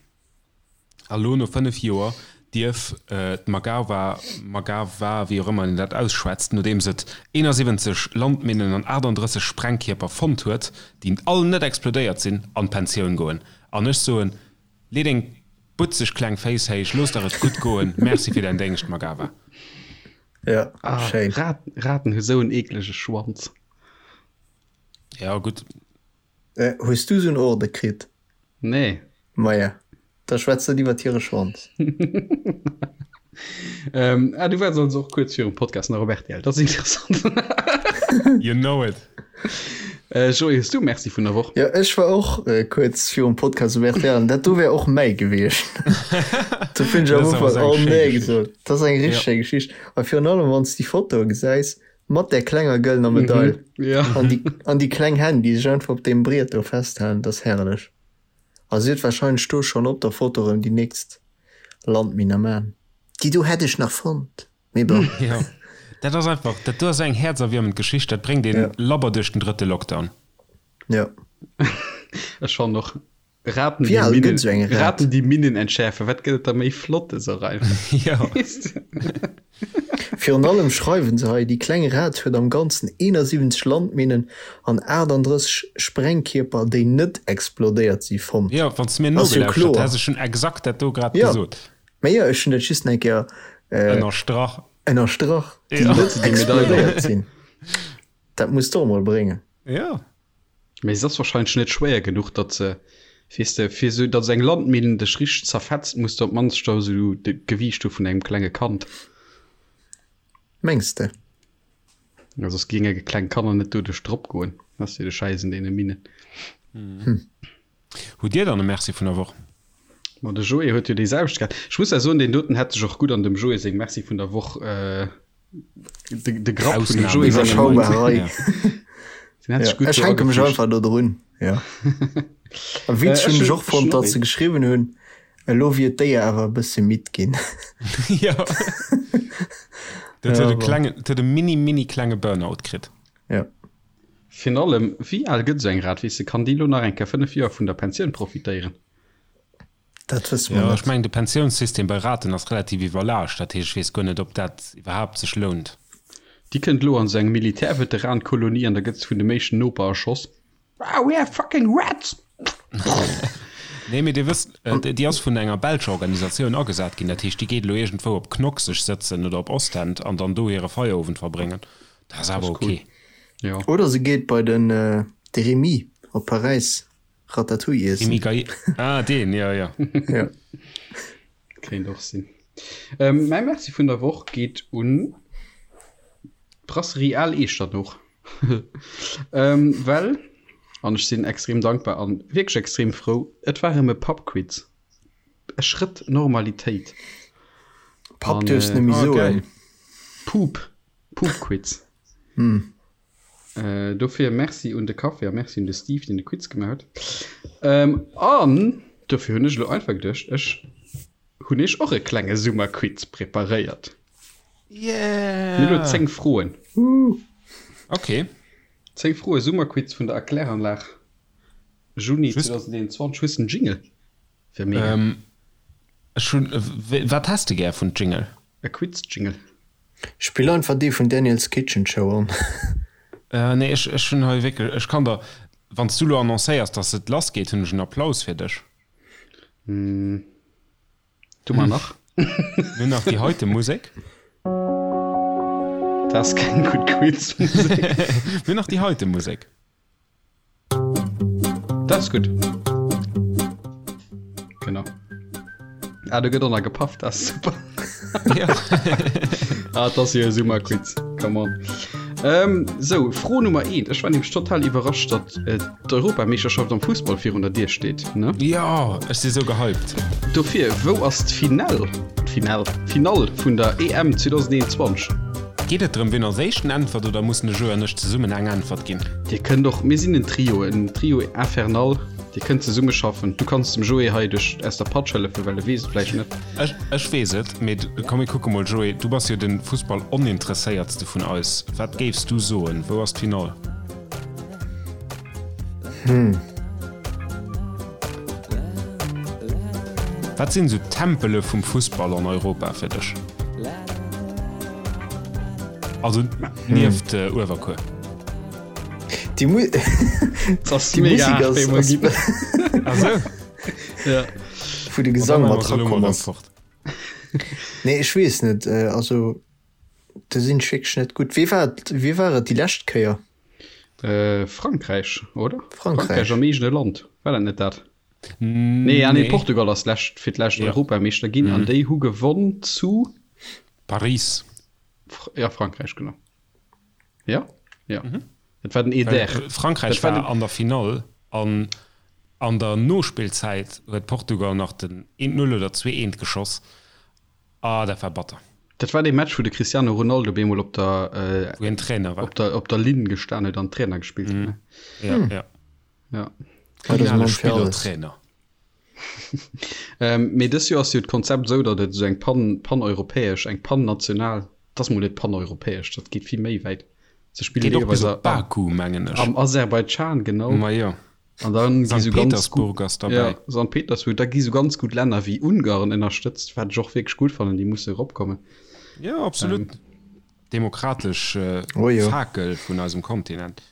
A lo no 5 Joer dierf d'Magawa, Magawa, wéi och ëmmer een dat ausschwätzt, nodeems et 71 Landminnen an 38 Sprengkierper fonnt huet, déi all net explodéiert sinn, an d'Pensioun goen. An ech soen, lee deng butzeg kleng Féiss héich, looss der et gutt goen, merci fir däin Déngscht, Magawa. Ja, schéin. Raten hu sou en eeklege Schwanz. Ja, gutt. Hues du sou en Orde kritt? Nee. Maja, da schwätz net iwwert hire Schwanz. Ähm, ah, du waars also och kuerz virum Podcast nach op rtl. Dat ass interessant. You know it. Äh, Joé, hues du Merci vun der Woch? Jo, ech war och äh, kuerz virum Podcast op rtl an dat do wär och mäi gewiescht. Do hunn ech am Dat ass awer Ufank esou oh eng schéi nee Geschicht. gesot. Dat ass eng Ja. richteg schéi Geschicht. A virun allem, wann s de déi Fotoe gesäis mat där klenger gëllener Medail Mhm, ja. an déi, an déi kleng Hänn, déi sech einfach op deem Briet do festhalen, dat ass herrlech. A si huet wahrscheinlech do schonn op der Foto erëm déi nächst Landminn am Aen. Déi do hätt ech nach fonnt, mee bon. Jo, dat ass einfach, dat do ass eng häerzerwiermend Geschicht, dat bréngt een Ja. labber duerch den drëtte Lockdown. Ja. Ech fannen och Raten, Wéi déi al Minnen, gëtt esou eng Rat? Raten, déi Minnen entschäerfen, wat gëtt et da méi Flottes och einfach. Jo. Weess de? Virun allem schreiwen se hei, déi kleng Rat huet am Ganzen 71 Landminnen an 38 Sprengkierper, déi net explodéiert si, fonnt. Jo, wann s de mir Ass jo nogelauschtert kloer. häss, ech hunn exakt dat do grad Jo, gesot. mä jo, ech hunn dat just nach eng Kéier Ënnerstrach. ënnerstrach, déi Jo. net explodéiert sinn. Dat muss de och emol bréngen. Jo. Mee se ass wahrscheinlech net schwéier genuch, datt se, weess de, fir esou, datt eng Landminn dech richteg zerfetzt, muss de op d'mannst scho esou d'Gewiicht hu vun engem klenge Kand. Mengs de? Ja, soss géinge kleng Kanner net doduerch drop goen. Dat ass jo de Schäiss un deene Minnen. Hutt Dir dann e Merci vun der Woch? Ma de Joé huet jo déi selwecht gehat. Ech muss ja soen, deen doten hätt sech och gutt an dem Joé seng Merci vun der Woch, de, de Grapp vun dem Joé senger Iwwerschaubar Rei. Ja. Den hätt sech gutt Ech do hänke mech agefügt. einfach do drun, jo. A witzeg hunn ech och fonnt, datt se geschriwwen hunn, elo wier d'Déier awer e bësse midd ginn. Jo. Dat huet e klengen, dat huet e mini, mini klenge Burnout kritt. Ja. Virun allem, wéi al gëtt esou eng Rat? Weess de, kann déi elo nach eng Kéier 5 Joer vun der Pensioun profitéieren? Dat wësse mer Jo, ech net. mengen, de Pensiounssystem bei Raten ass relativ iwwerlaascht. Dat heescht, ech weess guer net, ob dat iwwerhaapt sech lount. Déi kënnt elo an esou eng Militärveteran-Kolonie an da gëtt se vun dem éischten Noper erschoss. Ah, we have fucking rats! Nee, mee Dir wësst, déi ass vun enger belscher Organisatioun agesat ginn. Dat heescht, déi geet elo iergendwou op Knock sech sëtzen oder op Ostend an dann do hire Feierowend verbréngen. Dat ass awer ok. Jo. Oder se geet bei den de Remy op Paräis Ratatouille iessen. Remy Gaillet, ah deen, jo, jo. Jo. Kéint och sinn. Mäi Merci vun der Woch geet un d'Brasserie Al Eechternoch. Well, an ech sinn extrem dankbar an wierklech extrem frou, et war erëm e Pubquiz. E Schrëtt Normalitéit. Pub duerfs net méi soen. Pub, Pubquiz. Dofir Merci un de Café a Merci un de Steve, deen de Quiz gemaach huet. An dofir hunn ech elo einfach geduecht, ech hunn iech och e klenge Summerquiz preparéiert. Yeah! Mir hu lo 10 Froen. Ok. 10 Froe Summerquiz vun der Erkläranlag, Juni 2021. Hues de en Jingle? Wär mega. Ech hunn, wat häss de gär vun Jingle? E Quiz-Jingle. Spill einfach dee vun Daniel's Kitchen Show an. Nee, ech, ech hunn hei wierklech, ech kann der, wann s du lo annoncéiers, dass et lass geet, hunn ech en Applaus fir dech. Du mar nach. Mir hunn nach déi heite Musek. Dat ass keng gutt Quizmusek. Mir hunn nach déi heite Musek. Dat ass gutt. Genau. Ah, do gëtt och nach gepafft, dat ass super. Ja. Ah, dat ass jo e Summerquiz. Come on. Ähm, sou, Fro Nummer 1. Ech war nämlech total iwwerrascht, datt äh, d'Europameeschterschaft am Fussball virun der Dier steet, ne? Jo, ech si sou gehypt. Dofir, wou ass d'Finall, d'Finall, d'Finall vun der EM 2021? Geet et drëm, wien als éischten äntwert oder mussen de Joe an ech zesummen eng Äntwert ginn? Dir kënnt och, mir sinn en Trio, en Trio infernal, dir kënnt zesumme schaffen. Du kanns dem Joé hei duerch aus der Patsch hëllefen, well e weess et vläicht net. Ech, ech weess et, mee komm mir kucke mol, Joé, du bass jo de Fussball-Oninteresséiertste vun eis. Wat géifs du soen, wou ass d'Finall? Hm. Wat sinn esou d'Tempele vum Fussball an Europa fir dech? Also nieft hm. Uewerkuer. Déi Mu Déi Musek ass, ass also. ja. Wou de Gesang mat rakomm ass. Nee, ech weess net. Also do sinn ech wierklech net gutt. Wee war et, wee war et déi lescht Kéier? Äh, Frankräich, oder? Frankräich. Frankräich am eegene Land. War dat net dat? Nee, ah, nee, Portugal ass lescht, fir d'lescht Ja. Europameeschter ginn an déi hu gewonn zu Paris. Fr ja, Frankräich, genau. Ja, ja. Et war den Eder. Well Frankräich Dat war war den- an der Finall an an der Nospillzäit huet Portugal nach den 1-0 oder 2-1 geschoss. Ah, dat war batter. Dat war dee Match, wou de Cristiano Ronaldo bemol op der, äh, Wou hien Trainer war. op der, op der Linn gestan huet an Trainer gespillt huet. Ne? Ja, ja. Ja. Ja, dat ass Finale Mann fir alles. Spillertrainer. Ähm, mee dës Joer ass jo d'Konzept esou, datt et esou eng pan, paneuropäesch, eng pannational, dat ass mol net paneuropäesch, dat geet vill méi wäit. Se spillen Geet och bis deelweis op Baku, mengen ech. am Aserbaidschan, genau. Ma jo. An dann gi Sankt sou ganz Petersburg gutt, ass derbäi. ja, Sankt Petersburg, da gi sou ganz gutt Länner wéi Ungarn ënnerstëtzt, wat ech och wierklech gutt fannen, déi musse eropkommen. Jo, absolut. Demokratesch Oh jo. Fakel vun eisem Kontinent.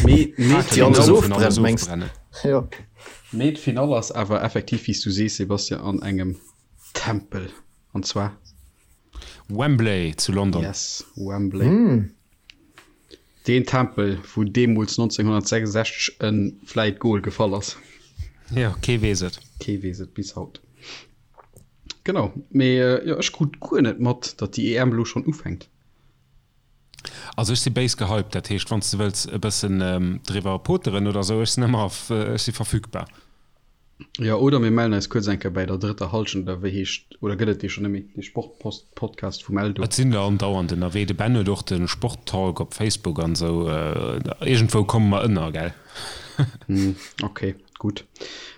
Mee, mee Fakel Déi alles vun alles ofbrennt, mengs ofbrennen. Jo. Mee d'Finall ass awer effektiv, wéi s du sees, Sebastian, an engem Tempel. An zwar? Wembley zu London. Yes, Wembley. Deen Tempel, wou deemools 1966 e vläit Gol gefall ass. Jo, kee weess et. Kee weess et bis haut. Genau, mee jo, ech krut guer net mat, datt déi EM elo schonn ufänkt. Also ech si béis gehypt, dat heescht wann s de wëlls e bëssen driwwer poteren oder sou, ech sinn ëmmer, ech si verfügbar. Jo, oder mir mellen eis kuerz eng Kéier bäi der drëtter Halschent, oder wéi heescht, oder gëtt et dee schonn net méi, dee Sportpost-Podcast vum Eldo? Et sinn der andauernd ënnerwee. De Ben huet och de Sporttalk op Facebook an sou. Iergendwou komme mer ënner, gell? Ok, gutt.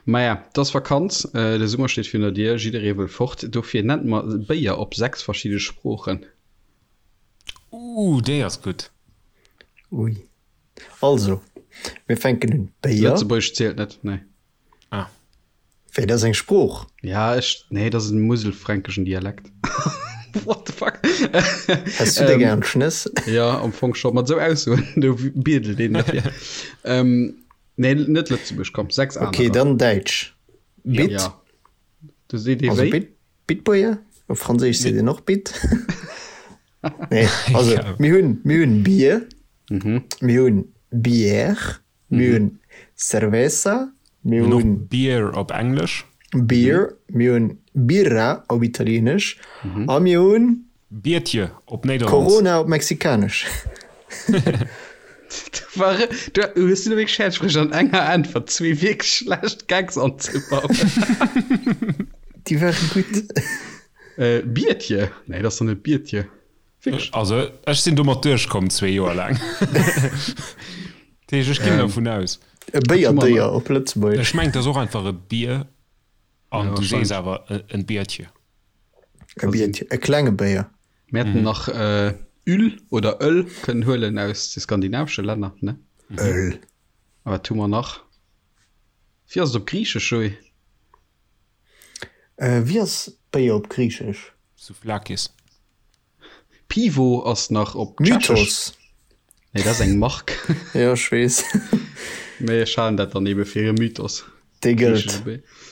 Maja, et ass Vakanz, de Summer steet virun der Dier, jidderee wëll fort. Dofir nennt mer Béier op 6 verschidde Sproochen. Uh, déi ass gutt. Ui. Also, mir fänken un. Béier. Lëtzebuergesch zielt net, nee. Ah. Wéi, dat ass eng Sprooch? Ja, ech, nee, dat ass en muselfränkischen Dialekt. What the fuck? Häss du der gern Schnëss? Ja, am Fong scho. Mat esou Aussoen, do biedelt een derfir. Ähm, nee, net Lëtzebuerg, komm, 6 anerer. Okay, dann Däitsch. Bit. Ja. Du seet ee Also wéi? Bit, Bitbuerger. Op Franséisch seet een och Bit. Nee, also mir hunn, mir hunn Bier, mir hunn Bière, mir hunn Cerveza, mir Mir hunn och hunn Beer op Englesch. Beer, mir hunn Birra op Italieenesch a mir hunn Biertje op Nederlands. Corona op Mexikanesch. Du war, du hues du wierklech fäerdeg bruecht an enger Äntwert zwee wierklech schlecht Gags anzebauen. Déi ware gutt. Äh, Biertje? Nee, dat ass doch net Biertje. Wierklech? Also ech sinn domat duerchkomm zwee Joer laang. Dat heescht, ech ginn dervun aus. E Béierdéier op Lëtzebuergesch. Ech mengen, et ass och einfach e Bier an Ja, du sees wahrscheinlech. awer en Biertje. E Biertje, e klenge Béier. Mir hätten nach Öl oder Öl kënnen huelen aus de skandinavesche Länner, ne? Öl. A wat hu mer nach? Wéi ass et op Griichesch, Joé? Wéi ass Béier op Griichesch? Souvlakis. Pivo ass nach op Tschechesch. Mythos. Nee, dat ass eng Mark. Jo, ech weess. Mee ech halen dat dann ebe fir e Mythos. Dee gëllt.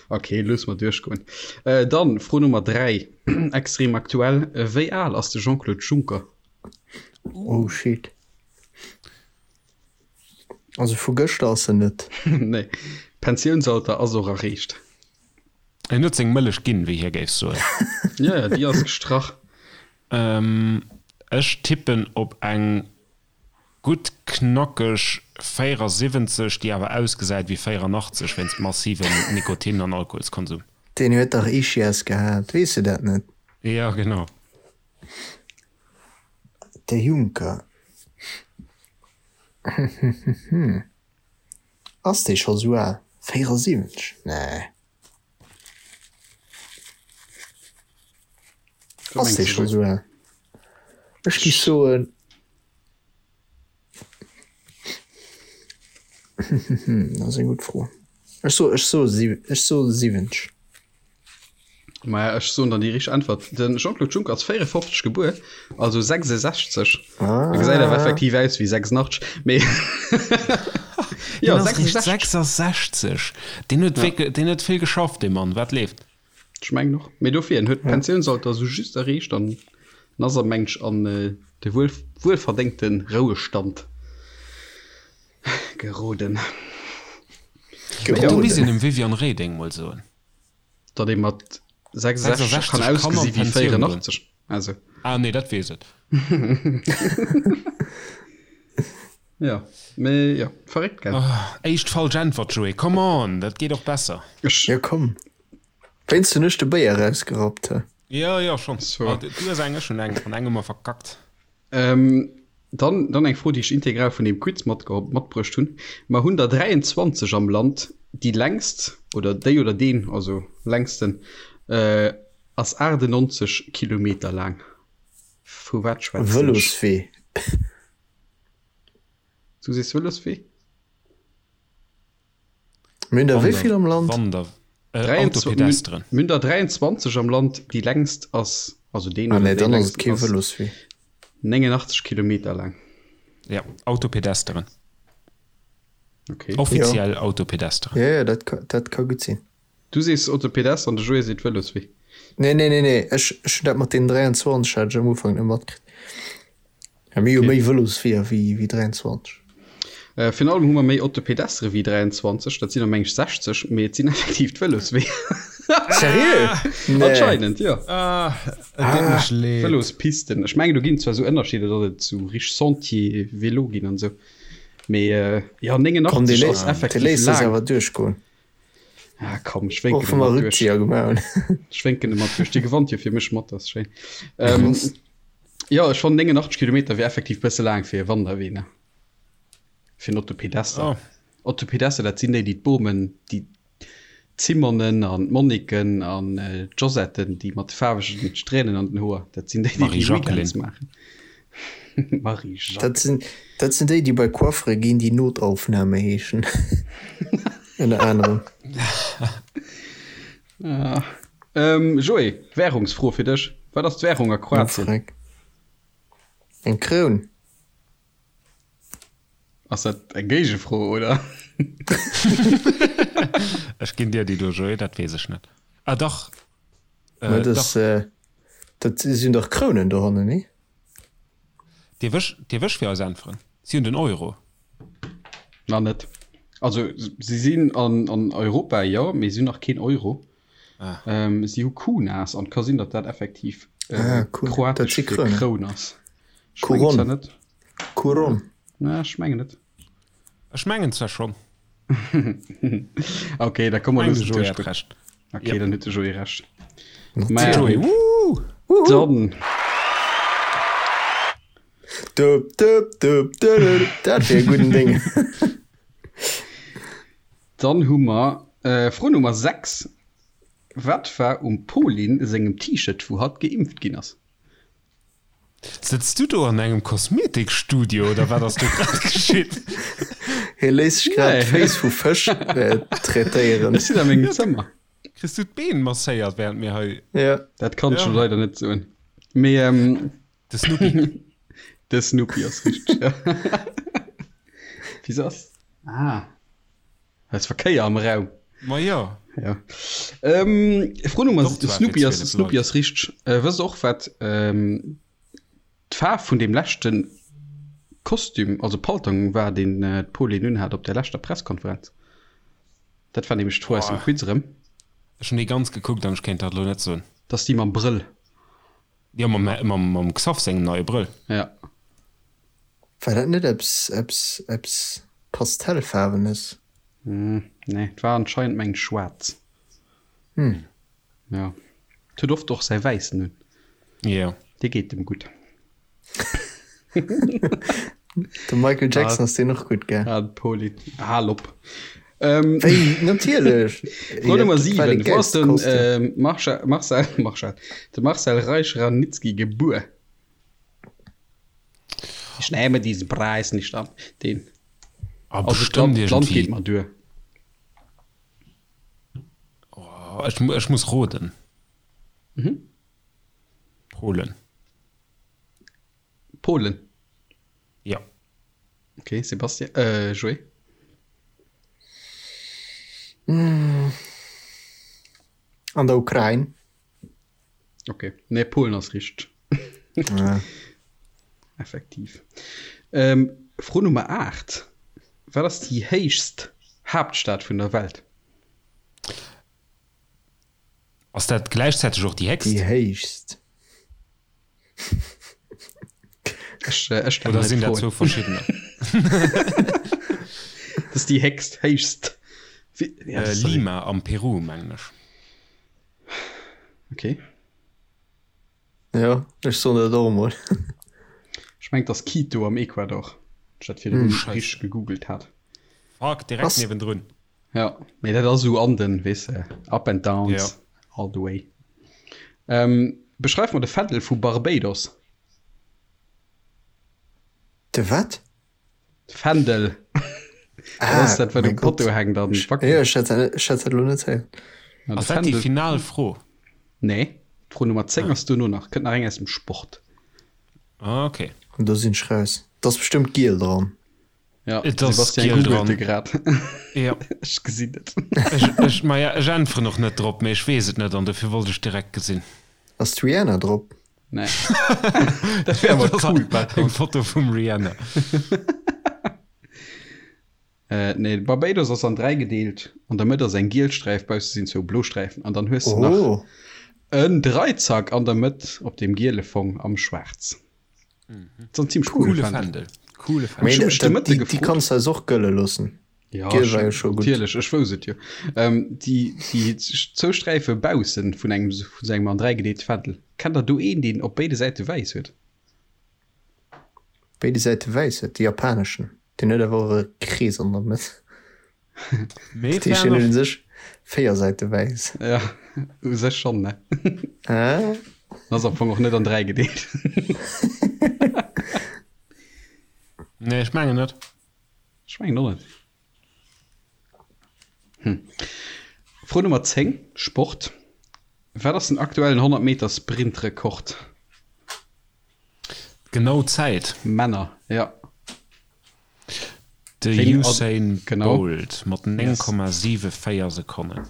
Ok, loosse mer duerchgoen. Dann Fro Nummer 3, extrem aktuell, Wéi al ass de Jean-Claude Juncker? Oh shit. Also vu gëschter ass en net. Nee, Pensiounsalter ass och erreecht. En huet seng Mëllech ginn, wéi hie géif soen. Jo, jo, déi ass gestrach. Ech tippen op eng gutt knackeg 74, déi awer ausgesäit wéi 84 wéinst massivem Nikotin an Alkoholskonsum. Deen huet dach Ischias gehat, weess de dat net? Jo, genau. De Juncker. Ass dee scho sou al? 74? Nee. Ass dee scho sou al? Ech gi soen. Dat ass eng gutt Fro. Ech so, ech so, ech so 70. Maja, ech soen dann déi richteg Äntwert. De Jean-Claude Juncker ass 54 gebuer, also 66. Ah. E gesäit awer effektiv aus wéi 86, mee jo, 66. 66! Deen huet wierklech, deen huet vill geschafft, dee Mann. Wat leeft? Ech mengen och. Mee dofir, en huet d'Pensiounsalter esou just erreecht an ass am mengt an de wuel, wuelverdéngte Rouestand geroden. Do misst een dem Viviane Reding mol soen. Datt ee mat 66 kann ausgesi wéi 84. Also. Ah nee, dat weess et. Ja, mee jo, verréckt, gell? Oh, éischt falsch Äntwert, Joé, come on, dat geet och besser. Ech. Jo, komm. Wéinst hunn ech de Béier erausgerappt, he? Jo, jo, schonn. Du hues eng, ech hunn eng, an eng hu mer verkackt. Dann, dann eng Fro, déi ech integral vun deem Quiz matbruecht hunn. Mer hunn der 23 am Land. Déi längst, oder déi oder deen, also längsten, ass 98 Kilometer laang. Vu wat schwätzen ech? Vëloswee. Du sees Vëloswee? Mir hunn der wéi vill am Land? Wander, äh, Autopedestren. Mir hunn der 23 am Land, déi längst ass, also deen Ah oder nee, déi dann ass et längst kee ass Vëloswee. 89 Kilometer laang. Ja, Autopedesteren. Okay. Offiziell Autopedesteren. Ja, ja, dat ka, dat ka gutt sinn. Du sees Autopedester an de Joé seet Vëloswee. Nee, nee, nee, nee, ech, ech hunn dat mat deenen 23 hat ech am Ufank net matkritt. Ja, mir hu Okay. méi Vëlosweeër wéi, wéi 23. Äh, virun allem hu mer méi Autopedestere wéi 23, dat sinn der meng ech 60, mee et sinn effektiv d'Vëlosweeër. Seriö? Nee. Anscheinend, jo. Ah, et deet mech leed. Vëlospisten. Ech mengen, do ginn et zwar esou Ënnerscheeder, datt et esou richteg Sentier vélo ginn an esou, mee äh, jo, Komm, dee 89 ass léisst, dee effektiv léisst sech laang. awer duerchgoen. Ah, komm, ech wénken Och wa mer e mat duerch. Rückzieher gemaach hunn. Ech wénken e mat duerch. Dir gewannt jo fir mech mat, dat ass schéin. Ähm, jo, ech fannen 89 Kilometer wier effektiv bësse laang fir e Wanderwee, ne? Fir en Autopedester. Oh. Autopedester, dat sinn déi, déi d'Bomen, déi d'Simonen an d'Moniken an d'Josetten, déi mat de faarwegen Strähnen an den Hoer, dat sinn déi, déi déi Marie-Jacqueline. Weekends maachen. Marie-Jacques. Dat sinn, dat sinn déi, déi bei Coiffere ginn, déi Notaufnahme heeschen. Ënner anerem. Ah. Ähm, Joé, Währungsfro fir dech. Wat ass d'Währung a Kroatien? Freck. Eng Kroun. Ass dat eng Géigefro, oder? Ech ginn dir déi do, Joé, dat weess ech net. Ah dach, Mä äh, dat, dach. äh, dat sinn dach Krounen dohannen, nee? Dierf ech, dierf ech fir eis äntweren? Si hunn den Euro. Nach net. Also si sinn an, an Europa, jo, mee si hunn nach keen Euro. Ah. Ähm, si hu Kunas an et ka sinn, datt dat effektiv äh, Ah, cool. Dat kroatesch si fir Krounen. Kroun ass. Ech mengen zwar Couronne. net. Couronne. Na, ech mengen net. Ech mengen zwar schonn. Okay, da komm mer Mengen de loossen Joé hat duerchgoen. Recht. Okay, Yep. dann huet de Joé Recht. De Maja, Joé, woo! dann Dup, dup, dup, dup, dup. Dat wier e gudden Ding. Dann hu mer äh, Fro Nummer 6. Wat war um Pauline sengem T-Shirt, wou hatt geimpft ginn ass? Sëtz du do an engem Kosmetikstudio oder wat ass do grad geschitt? Hie léisst sech grad Nee. d'Féiss vu Fësch äh, traitéieren. Ech sinn a mengem Zëmmer. Kriss du d'Been masséiert während mir hei. Ja. Dat kann ech Ja. jo leider net soen. Mee ähm, De Snoopy. de Snoopy ass richteg. Ja. Wieso ass. Ah. Da ass Verkéier am Raum. Ma jo. Ja. Ähm, Fro Nummer Doch, zwar fir Snoopy ass 12 Snoopy Leit. ass richteg. Äh, wësst och wat ähm, d'Faarf vun dem leschten Kostüm, also Paltong war, deen äh, d'Pauline unhat op der leschter Presskonferenz? Dat war nämlech d'Fro aus dem Boah. Quiz erëm. Ech hunn déi ganz gekuckt an ech kéint dat elo net soen. Dat ass déi mam Brëll. Jo, mam, mam, mam Xaph sengem neie Brëll. Ja. War dat net eppes, eppes, eppes Pastellfaarwenes? Hm, nee, et war anscheinend mengen schwaarz. Hm. Ja. Et huet oft och säi wäissen un. Jo. Dee geet em gutt. Dem Michael Jackson ass deen och gutt, gell? Ah, de Poli. Hal op. Ähm, Wéi, natierlech! Fro Nummer Dat war dee 7. Wou ass gäilste den Kostüm. ähm, Marcha, Marcel, Marcel, de Marcel Reich-Ranicki gebuer? Ich nehme diesen Preis nicht an. Den. Ah, Also bestimmt d'Land, d'Land irgendwie. geet mer duer. Oh, ech, ech muss roden. Mhm. Polen. Polen. Ja. Okay, Sebastian, äh, Joé. An der Ukrain. Okay, nee, Polen ass richteg. Ja. Effektiv. Ähm, Fro Nummer 8. Wat ass déi héichst Haaptstad vun der Welt? Ass dat gläichzäiteg och déi héchst? Déi héichst. Ech, äh, ech stelle Oder hei sinn dat d'Froen. zwou verschiddener? Das ist déi héchst, héichst. Wie, ja, Äh, das ist Lima am Peru, mengen ech. Okay. Ja, ech soen dat och emol. Ech mengen, et ass Quito am Ecuador. Ech dat virdrun Scheisse. richteg gegoogelt hat. Fuck, direkt Ass- niewendrun. Ja, mee dat ass esou an den, weess de, Up and Downs, Ja. all the way. Ähm, beschreif mer de Fändel vu Barbados. De wat? Fändel. Ah, Dat ass dat, wat mein um Potto Gott. hänkt an Ja, wackelt. ech hätt dat, ech hätt dat elo net héieren. Ja, de Ass dat déi Fändel. final Fro? Nee, d'Fro Nummer 10 ass duerno nach. Kënnt nach eng aus dem Sport. Ah, okay. An do sinn ech raus. Et ass bestëmmt giel dran. Ja, Et ass Sebastian giel googelt dran. grad. Ja. Ech gesinn et. Ech, ech, maja, ech äntweren och net drop, mee ech weess et net an dofir wollt ech direkt gesinn. Ass d'Rihanna drop? Nee. Dat wär awer Dat ass cool, par eng contre. Foto vum Rihanna. Äh, nee, Barbados ass an 3 gedeelt. An der Mëtt ass eng giel Sträif, bausse sinn zwou blo Sträifen. An dann hues de nach Oh, en Dreizack an der Mëtt op deem giele Fong am Schwaarz. Dat ass en zimmlech coole Coole Fändel. Fändel. Coole Fändel. mee Ech hu mech de dat, Mëtte déi, déi gefrot. kanns du eis och gëlle loossen. Ja, Giel ech, war jo scho gutt. natierlech, ech wousst et jo. Ähm, déi, déi zwou Sträife bausse vun engem, vun sou engem an 3 gedeelte Fändel. Kennt der do een, deen op béide Säite wäiss huet? Béide Säite wäiss huet, de japaneschen. Deen huet awer och e Krees an der Mëtt. Mee Dat heescht, fair deen huet enough. u sech 4 Säite wäiss. Ja, u sech schonn, ne? Ah. Ass am Fong och net an 3 gedeelt. Nee, ech mengen net. Ech mengen och net. Hm. Fro Nummer 10, Sport. Wat ass den aktuellen 100 Meter Sprintrekord? Genau Zäit? Männer, ja. De Usain Bolt mat 9,74 Sekonnen.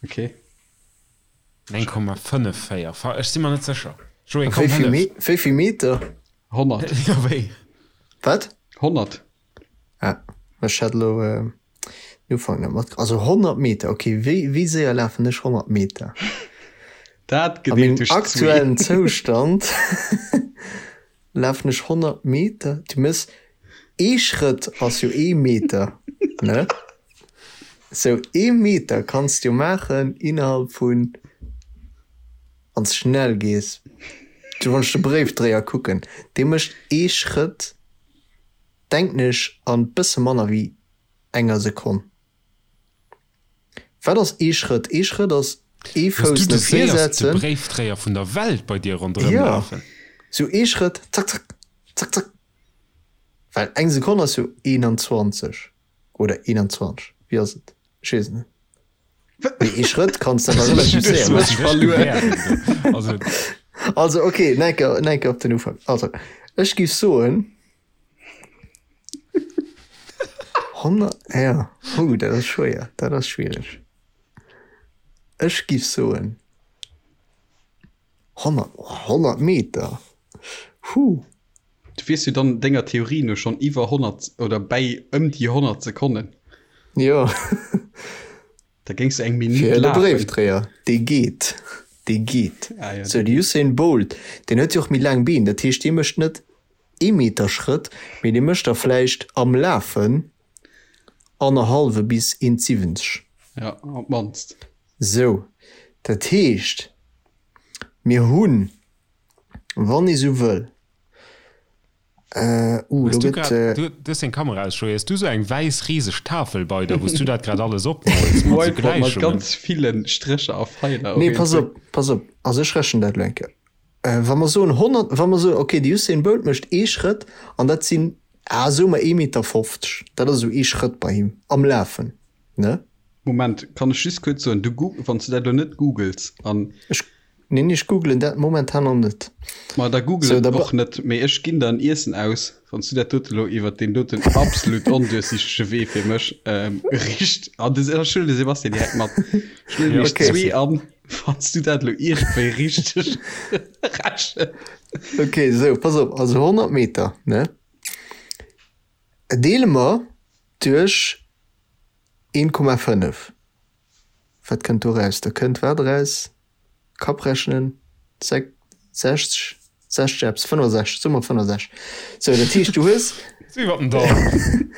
Okay. 9,54, ech si mer net sécher. Joé, komm, hëllef. Wéi vill Meter? 100. Jo, wéi? Wat? 100. Ah, ech hat elo den Ufank net mat. Also 100 Meter, ok. Wéi, wéi séier lafen ech 100 Meter? Dat A gedeelt mengem duerch zwee. aktuellen Zoustand lafen ech 100 Meter. Du méchs ee Schrëtt ass jo ee Meter, ne? Sou ee Meter kanns de jo maachen innerhalb vun, wann s de schnell gees, du wann ech de Bréifdréier kucken, dee mécht ee Schrëtt, denken ech, an bësse manner wéi enger Sekonn. Wat ass ee Schrëtt? Ee Schrëtt ass ee Hues du Fouss de no vir séierste setzen. Bréifdréier vun der Welt bei dir ronderëm Jo, lafen? sou ee Schrëtt, zack, zack, zack, zack. Well eng Sekonn ass jo 21 oder 21, wéi ass et? Ech weess et net. Mee ee Schrëtt kanns de awer relativ séier maachen. Also, Also, okay, nach eng Kéier, nach eng Kéier op den Ufank. Also, ech géif soen, 100, ja, hu, dat ass schwéier, dat ass schwiereg. Ech géif soen 100, oh, 100 Meter, hu. Du wiers jo dann denger Theorie no schonn iwwer 100 oder bäi ëm déi 100 Sekonnen. Jo. Da géings du eng Minutt Fir de lafen. Bréifdréier, dee geet, dee geet. Ah jo, Sou, dee de geet. Usain Bolt, deen huet jo och méi laang Been, dat heescht, dee mécht net ee Meter Schrëtt, mee dee mécht der vläicht am Lafen annerhallwe bis 1,70. Ja, op d'mannst. Sou, dat heescht, mir hunn, wann ee sou wëll, Uh, Hues do du gëtt. grad, Äh, du, du hues deng Kamera aus, Joé, hues du sou eng wäiss riseg Tafel bei der, wou s du dat grad alles opmols mat sou Whiteboard mat Gläichungen? ganz ville Strécher a Feiler. nee, pass op, pass op. Also ech rechnen dat elo eng Kéier. Äh, wa mer soen 100, wa mer soen, okay, de Usain Bolt mécht ee Schrëtt an dat sinn, ah, soe mer 1,50 Meter. Dat ass esou ee Schrëtt bei him am Lafen, ne? Moment, kann ech just kuerz soen, du goog, wann s du dat elo net googles an. Ech Neen, ech googlen dat momentan nach net. Ma da google So, et da och net, mee ech ginn der en Iessen aus, wann s du dat dote lo iwwert deen doten absolut onduerchsichtege Wee fir mech richt. An de, ech huelen de Sebastian direkt mat. Ech lueden iech Okay. zwee an, wann s du dat lo iergendwéi richteg rechens. Okay, sou, pass op, also 100 Meter, ne, deele mer duerch 1,5. Wat kënnt do raus? Da kënnt wat eraus? Kapp rechnen, 60, 60 eppes, 65, soe mer 65. Sou, dat heescht, du hues. Iwwer den Daumen.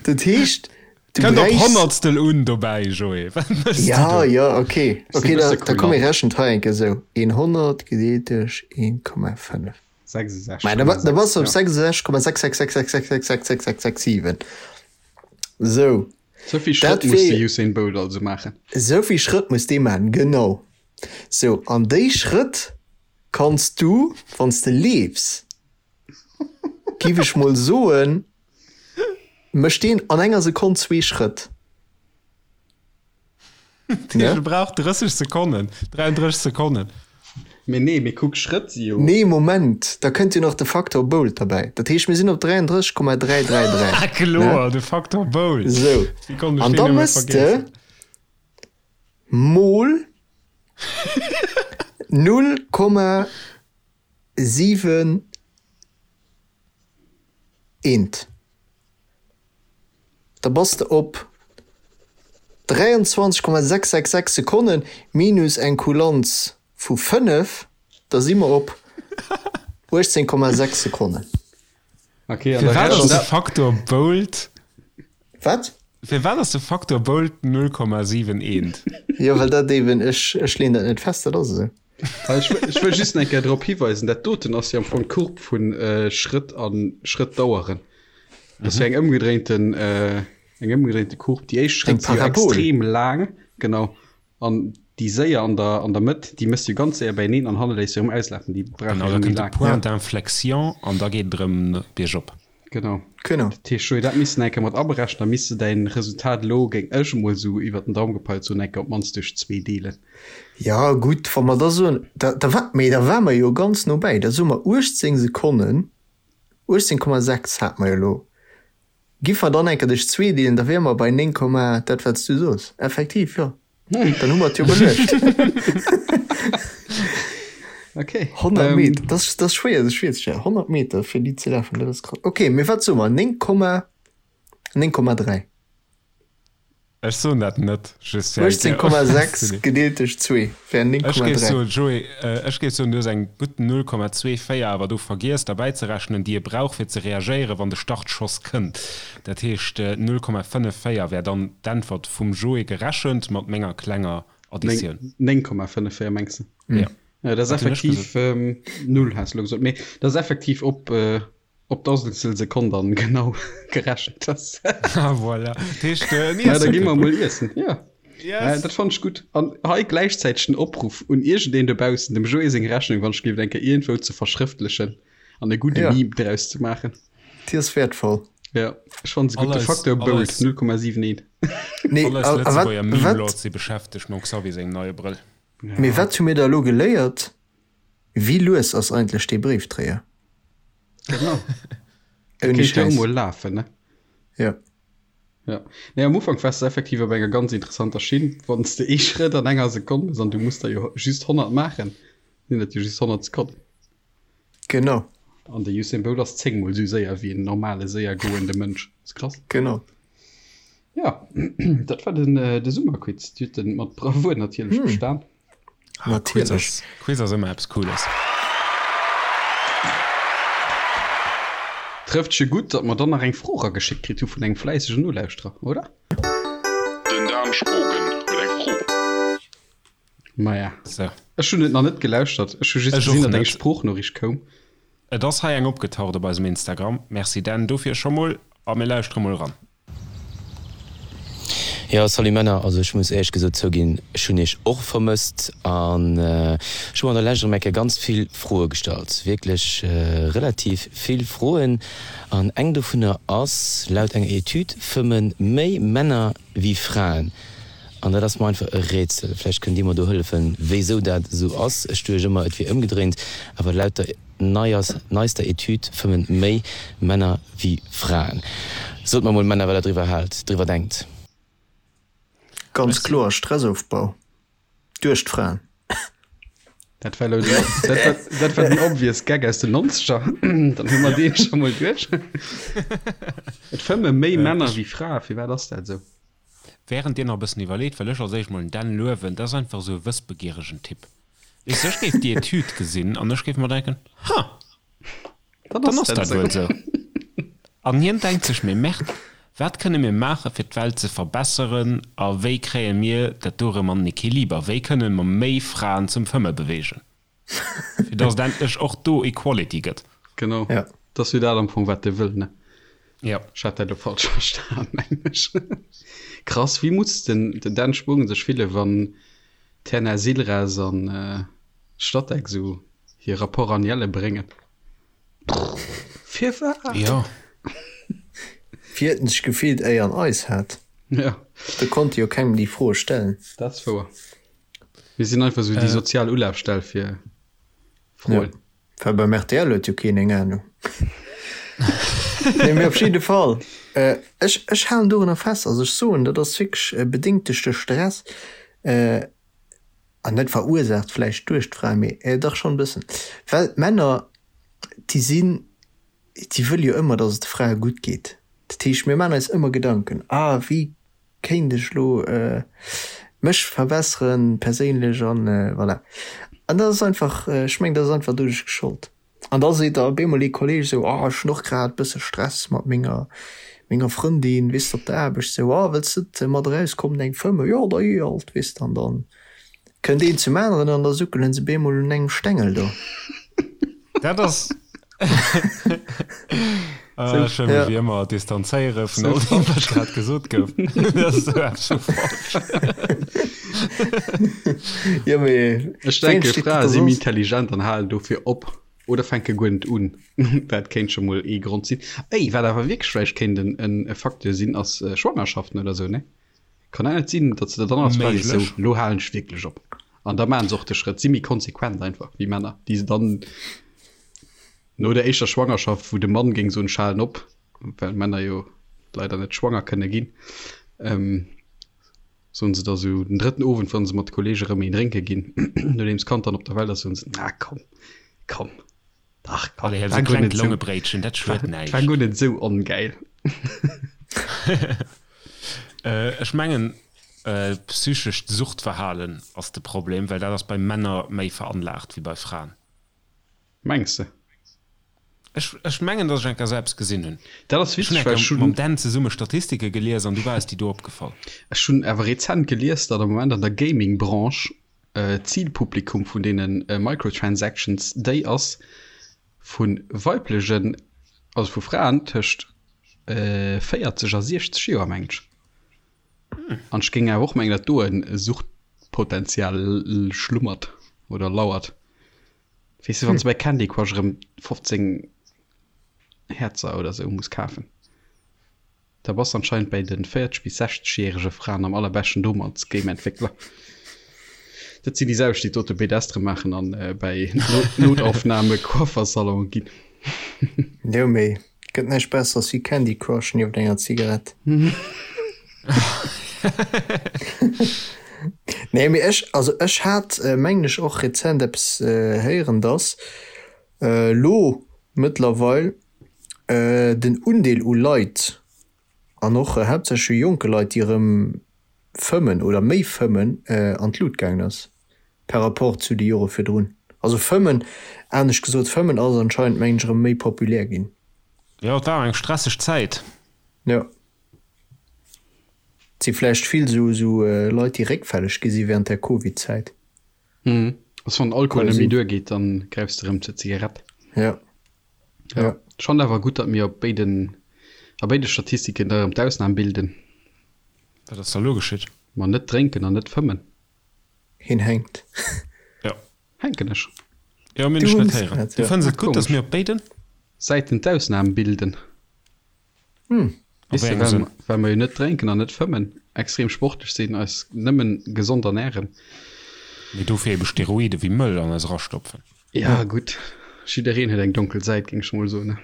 Dat heescht, du Kënnt op bräichs. Honnertstel un dobäi, Joé. Wat méchs du Ja, do? ja, okay. Ass e Okay, da, bësse da komm, mir kulant. rechnen hei eng Kéier esou, 100 gedeelt duerch 1,5. 66,6, Mä da, da bass du op ja. 66,66666666667. Sou. Sou vill Schrëtt muss de Usain Bolt also maachen. Sou vill Schrëtt muss dee maachen, genau. Sou, an déi Schrëtt kanns du, wann s de leefs, giff ech mol soen, mécht deen an enger Sekonn zwee Schrëtt. Dee brauch 30 Sekonnen, 33 Sekonnen. Mee nee, mee kuck, Schrëtt si jo. Nee, Moment, da kënnt jo nach de Faktor Bolt derbäi. Dat heescht, mir sinn op 33,333. Ah, kloer, de Faktor Bolt. Sou, Wéi konnt ech an deen da nëmme mëss de vergiessen? mol 0,7 eent. Da bass de op 23,666 Sekonnen minus eng Kulanz vu 5, da si mer op 18,6 Sekonnen. Okay, an da Firwat ass rechent de dat. Faktor Bolt? Wat? Firwat ass de Faktor Bolt 0,71? Jo, well dat eben, ech, ech leeën dat net fest, dat ass esou. Ech wëll just eng Kéier drop hiweisen, dat doten ass jo am Fong d'Courbe vu Schrëtt a Schrëttdaueren. Dat ass jo eng ëmgedréinten, eng ëmgedréinte Courbe. Déi éischt Eng Schrëtt si jo Parabol. extrem laang, genau, an Déi séier an der, an der Mëtt, déi méchs du ganz séier beieneen an hanne léiss se erëm auslafen. Déi brauche Genau, jo da méi kënnt de laang. Point d'inflexion an da geet et erëm biergop. Genau. Genau. Dat heescht, Joé, dat misst de eng Kéier mat aberechnen, da misst de däin Resultat elo, géing ech emol esou iwwert den Daum gepeilt soen, eng Kéier op d'mannst duerch zwee deelen. Jo, gutt, wa mer da soen, da, da war, mee da ware mer jo ganz no bäi, da soe mer 18 Sekonnen, 18,6 hate mer jo elo. Giff mer dann enker duerch zwee deelen, da wiere mer bei 9, dat wat s du soos. Effektiv, jo. Dann hu mer et jo beluecht. Okay. 100 Meter, dat ass, dat ass schwéier sech virzestellen. 100 Meter fir déi ze lafen, dat ass krass. Okay, mee wat soe mer? 9, 9,3. Ech soen dat net, just fir eng Kéier. 18,6 gedeelt duerch 2 wär Ech géif 9,3. soen, Joé, ech géif soen, du hues eng gutt 0,24 awer do vergiess derbäizerechnen, déi e brauch fir ze reagéieren, wann de Startschoss kënnt. Dat heescht, 0,54 wär dann d'Äntwert vum Joé gerechent mat menger klenger Additioun. 9,54 mengs de? Jo. Ja, dat ass Wat hunn ech effektiv gesot? Null, has de elo gesot. Mee dat ass effektiv op Op d'Dausendstel Sekonn dann genau gerechent ass. Ah voilà. Dat heescht, äh, en Ja, da Iessen gi mer kënnt mol noch. iessen. Ja. Äh, Yes! dat fand ech gutt. An hei gläichzäiteg den Opruff un iergendeen dobaussen, dem Joé seng Rechnung, wann ech géif eng Kéier iergendwou ze verschrëftlechen an e gudde Ja. Meme draus ze maachen. Déi ass wäertvoll. Ja, ech fand se gutt. All De eis, Facteur all Bold eis, 0,71. Nee, all eis a, a wat, Lëtzebuerger wat, Meme-Lords si beschäftegt mam Xavier sengem neie Brëll. mee Ja. wat hu mir da elo geléiert? Wéi lues ass eigentlech dee Bréifdréier? Genau. Der Ouni kéint jo Schäiss. mol lafen, ne? Ja. Ja. Nee, am Ufank wars de effektiv op enger ganz interessanter Schinn. Wann s de ee Schrëtt an enger Sekonn hues an du muss der jo just 100 maachen, sinn dat jo just 100 Sekonnen. Genau. An de Usain Bolt ass 10 mol esou séier wéi en normale séier goende Mënsch. Ass krass. Genau. Ja, dat war den, de Summerquiz. Dir hutt en mat Bravour natierlech bestan. Natierlech. Quiz ass ëmmer eppes Cooles. Trëfft scho gutt, datt mer dann nach eng Fro erageschéckt kritt hu vun engem fläissegen Nolauschterer, oder? Den Dan Spogen huet eng Fro. Maja, So. ech hunn et nach net gelauschtert. Ech hu just Ech och gesinn, datt eng net. Sproochnoriicht koum. Et ass hei eng opgetaucht op eisem Instagram. Merci Dan dofir scho mol a mir lauschtere mol eran. Jo, salut Männer, also ech muss éierlech gesot zouginn, ech hunn iech och vermësst an ech hu mer an der Lescht erëm eng Kéier ganz vill Froe gestallt, wierklech relativ vill Froen an eng dovunner ass, laut enger Etüd fëmmen méi Männer wéi Fraen an dat ass mer einfach e Rätsel. Vläicht kënnt dir mer do hëllefen, wéisou dat esou ass. Ech duecht ëmmer et wier ëmgedréint, awer laut der. Neister Etüd fëmmen méi Männer wéi Fraen. Sot mer mol Männer wat der driwwer haalt, driwwer denkt. Ganz kloer Stressofbau duerch d'Fraen. Dat war elo den, dat war, dat war den obvious Gag aus den Nonzeger. Dann hu mer dee scho mol duerch. Et fëmme méi Männer wéi Frae, firwat ass dat esou? Während dir nach e bëssen iwwerleet, wëll ech als éischt mol den Dan luewen, dat ass einfach esou e wëssbegieregen Typ. Weess de, ech géif déi Etüd gesinn an ech géif mer denken, Ha, dann ass dat wuel esou. An hien denkt sech, Mee Merde, wat kënne mir maachen, fir d'Welt ze verbesseren a wéi kréie mir dat do erëm an den Equiliber? Wéi kënne mer méi Fraen zum Fëmme beweegen, fir datt et endlech och do Equality gëtt? Genau, Ja. dat ass jo dat am Fong, wat e wëll, ne? Ja. Ech hat dat elo falsch verstan, mengen ech. Krass, wéi muss den Dan Spogen sech fillen, wann D'Terna Silras an Statec sou hir Rapport annuelle bréngen. Firwat? Jo. Wéi huet en sech gefillt éier en eis hat? Ja. Do konnt e jo kengem déi Froe stellen. Dat ass wouer. Mir sinn einfach sou déi sozial Ulafstell fir Froen. Ja. Well beim rtl huet jo keen eng Ahnung. Nee, mee op jidde Fall, ech, ech halen dorunner fest. Also ech soen, dat ass wierklech bedéngt duerch de Stress an net verursaacht vläicht duerch d'Fraen, mee dach schonn e bëssen. Well d'Männer, déi sinn, déi wëlle jo ëmmer, datt et de Frae gutt geet. Dat heescht, mir maachen eis ëmmer Gedanken, ah wéi kéint ech lo mech verbesseren perséinlech an voilà. An dat ass einfach, ech mengen, dat ass einfach doduerch geschollt. An da seet da op eemol ee Kolleeg esou, oh ech hunn och grad bësse Stress mat menger menger Frëndin, weess de, op der Aarbecht esou, oh wëlls de net mat erauskommen eng fëmmen? Jo da jee alt, weess de. An dann kënnt een zum aneren an da suckelen se op eemol un engem Stengel do. Dat ass. Ech wëll mech wéi ëmmer distanzéiere vun all deem, wat grad gesot gouf. Dat ass esou eppes vu falsch. Jo, mee Ech denke, Frae si méi intelligent an halen dofir op oder fänke guer net un. Dat kéint scho mol ee Grond sinn. Ey, wat awer wierklech vläicht kéint e Facteur sinn, ass Schwangerschaften oder esou, ne? Kann dat net sinn, datt se der dann als Fra sees, sou, lo halen ech wierklech op? An da maachen se och de Schrëtt, si méi konsequent einfach wéi Männer, déi se dann No der éischter Schwangerschaft, wou de Mann géing soen, ech halen op, well Männer jo leider net schwanger kënne ginn, soen se da sou den drëtten Owend, wa se mat de Kollege rëm een drénke ginn, nodeems d'Kand dann op der Welt ass, soen se, Na komm, komm, dach komm, Allez, war guer net sou, war guer net sou ongäil. Ech mengen, psychescht Suchtverhalen ass de Problem, well dat ass bei Männer méi veranlaagt wéi bei Fraen. Mengs de? Ech, ech mengen, dass ech eng Kéier esou eppes gesinn hunn. Dat ass Ech hunn witzeg, eng well ech Kéier mam hunn. Dan zesumme Statistike gelies an du war es déi do opgefall. Ech hunn awer rezent gelies, datt am Moment an der Gaming-Branche d'Zilpublikum vun deene Microtransactions déi ass vu weiblegen, also vu Fraen tëscht 40 a 60 Joer, mengen ech. An ech géing awer och mengen, datt do e Suchtpotenzial schlummert oder lauert. Weess de, wann s de bei Candy Crush erëm 15 Häerzer oder sou muss kafen, da bass de anscheinend bäi de 40 bis 60 järege Fraen am allerbeschten domm als Game-Entwéckler. Dat sinn déi selwecht, déi d'Orthopedestere maachen an bäi Notaufnahme Coiffersalone ginn. Jo, mee gëtt näischt Besseres wéi Candy Crush nieft enger Zigarett. Nee, mee ech, also ech hat, mengen ech, och rezent eppes héieren, dass elo mëttlerweil den Undeel u Leit, an och haaptsächlech u jonke Leit, déi erëm fëmmen oder méi fëmmen, an d'Lut gaangen ass par rapport zu de Jore virdrun. Also fëmmen, anescht gesot, fëmmen ass anscheinend, mengen ech, erëm méi populär ginn. Jo, et war eng stresseg Zäit. Jo. Et si vläicht vill esou Leit, déi réckfälleg gi si während der Covid-Zäit. Mhm. Also wann Alkohol net méi duer geet, dann gräifs de rëm zur Zigarett. Ja. Ja. Ech fannen awer gutt, datt mir op béiden, a béide Statistiken da rëm d'Ausnam bilden. Wat ass da lo geschitt? Ma net drénken an net fëmmen. Hien hänkt. Ja. Hänken ech? Jo, mir hunn dech net héieren. Du fënns et gutt, datt mir op béiden. Säiten d'Ausnam bilden. Hm. Weess de, well, well mer jo net drénken an net fëmmen, extrem sportlech sinn, eis nëmmen gesond ernären. Mee dofir ebe Steroide wéi mëll an eis erastopfen. Ja, gutt, jiddereen huet eng donkel Säit, géing ech mol soen.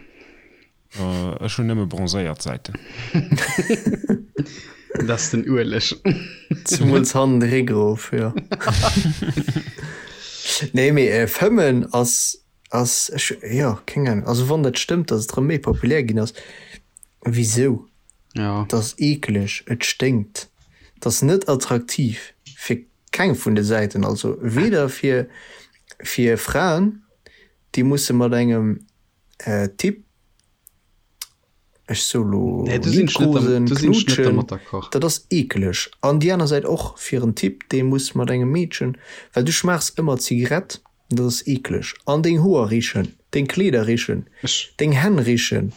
Ech hunn nëmme bronzéiert Säiten. Dat ass den Ueleg. Zemools hannen de Réck erof, jo. Nee, mee fëmmen ass Ass, ech, jo, keng Ahnung. Also wann dat stëmmt, datt et erëm méi populär ginn ass, wisou? Ja. Et ass eekeleg, et sténkt, et ass net attraktiv fir keng vun de Säiten. Also weder fir, fir Fraen, déi musse mat engem Typ, ech soe lo Nee, do sinn ech net liebkosen, do sinn ech net knutschen, dermat d'accord. dat ass eekeleg. An déi aner Säit och fir en Typ, dee muss mat engem Meedchen, well du schmaachs ëmmer Zigarett, dat ass eekeleg. An deng Hoer richen, deng Kleeder richen, Ech. deng Hänn richen,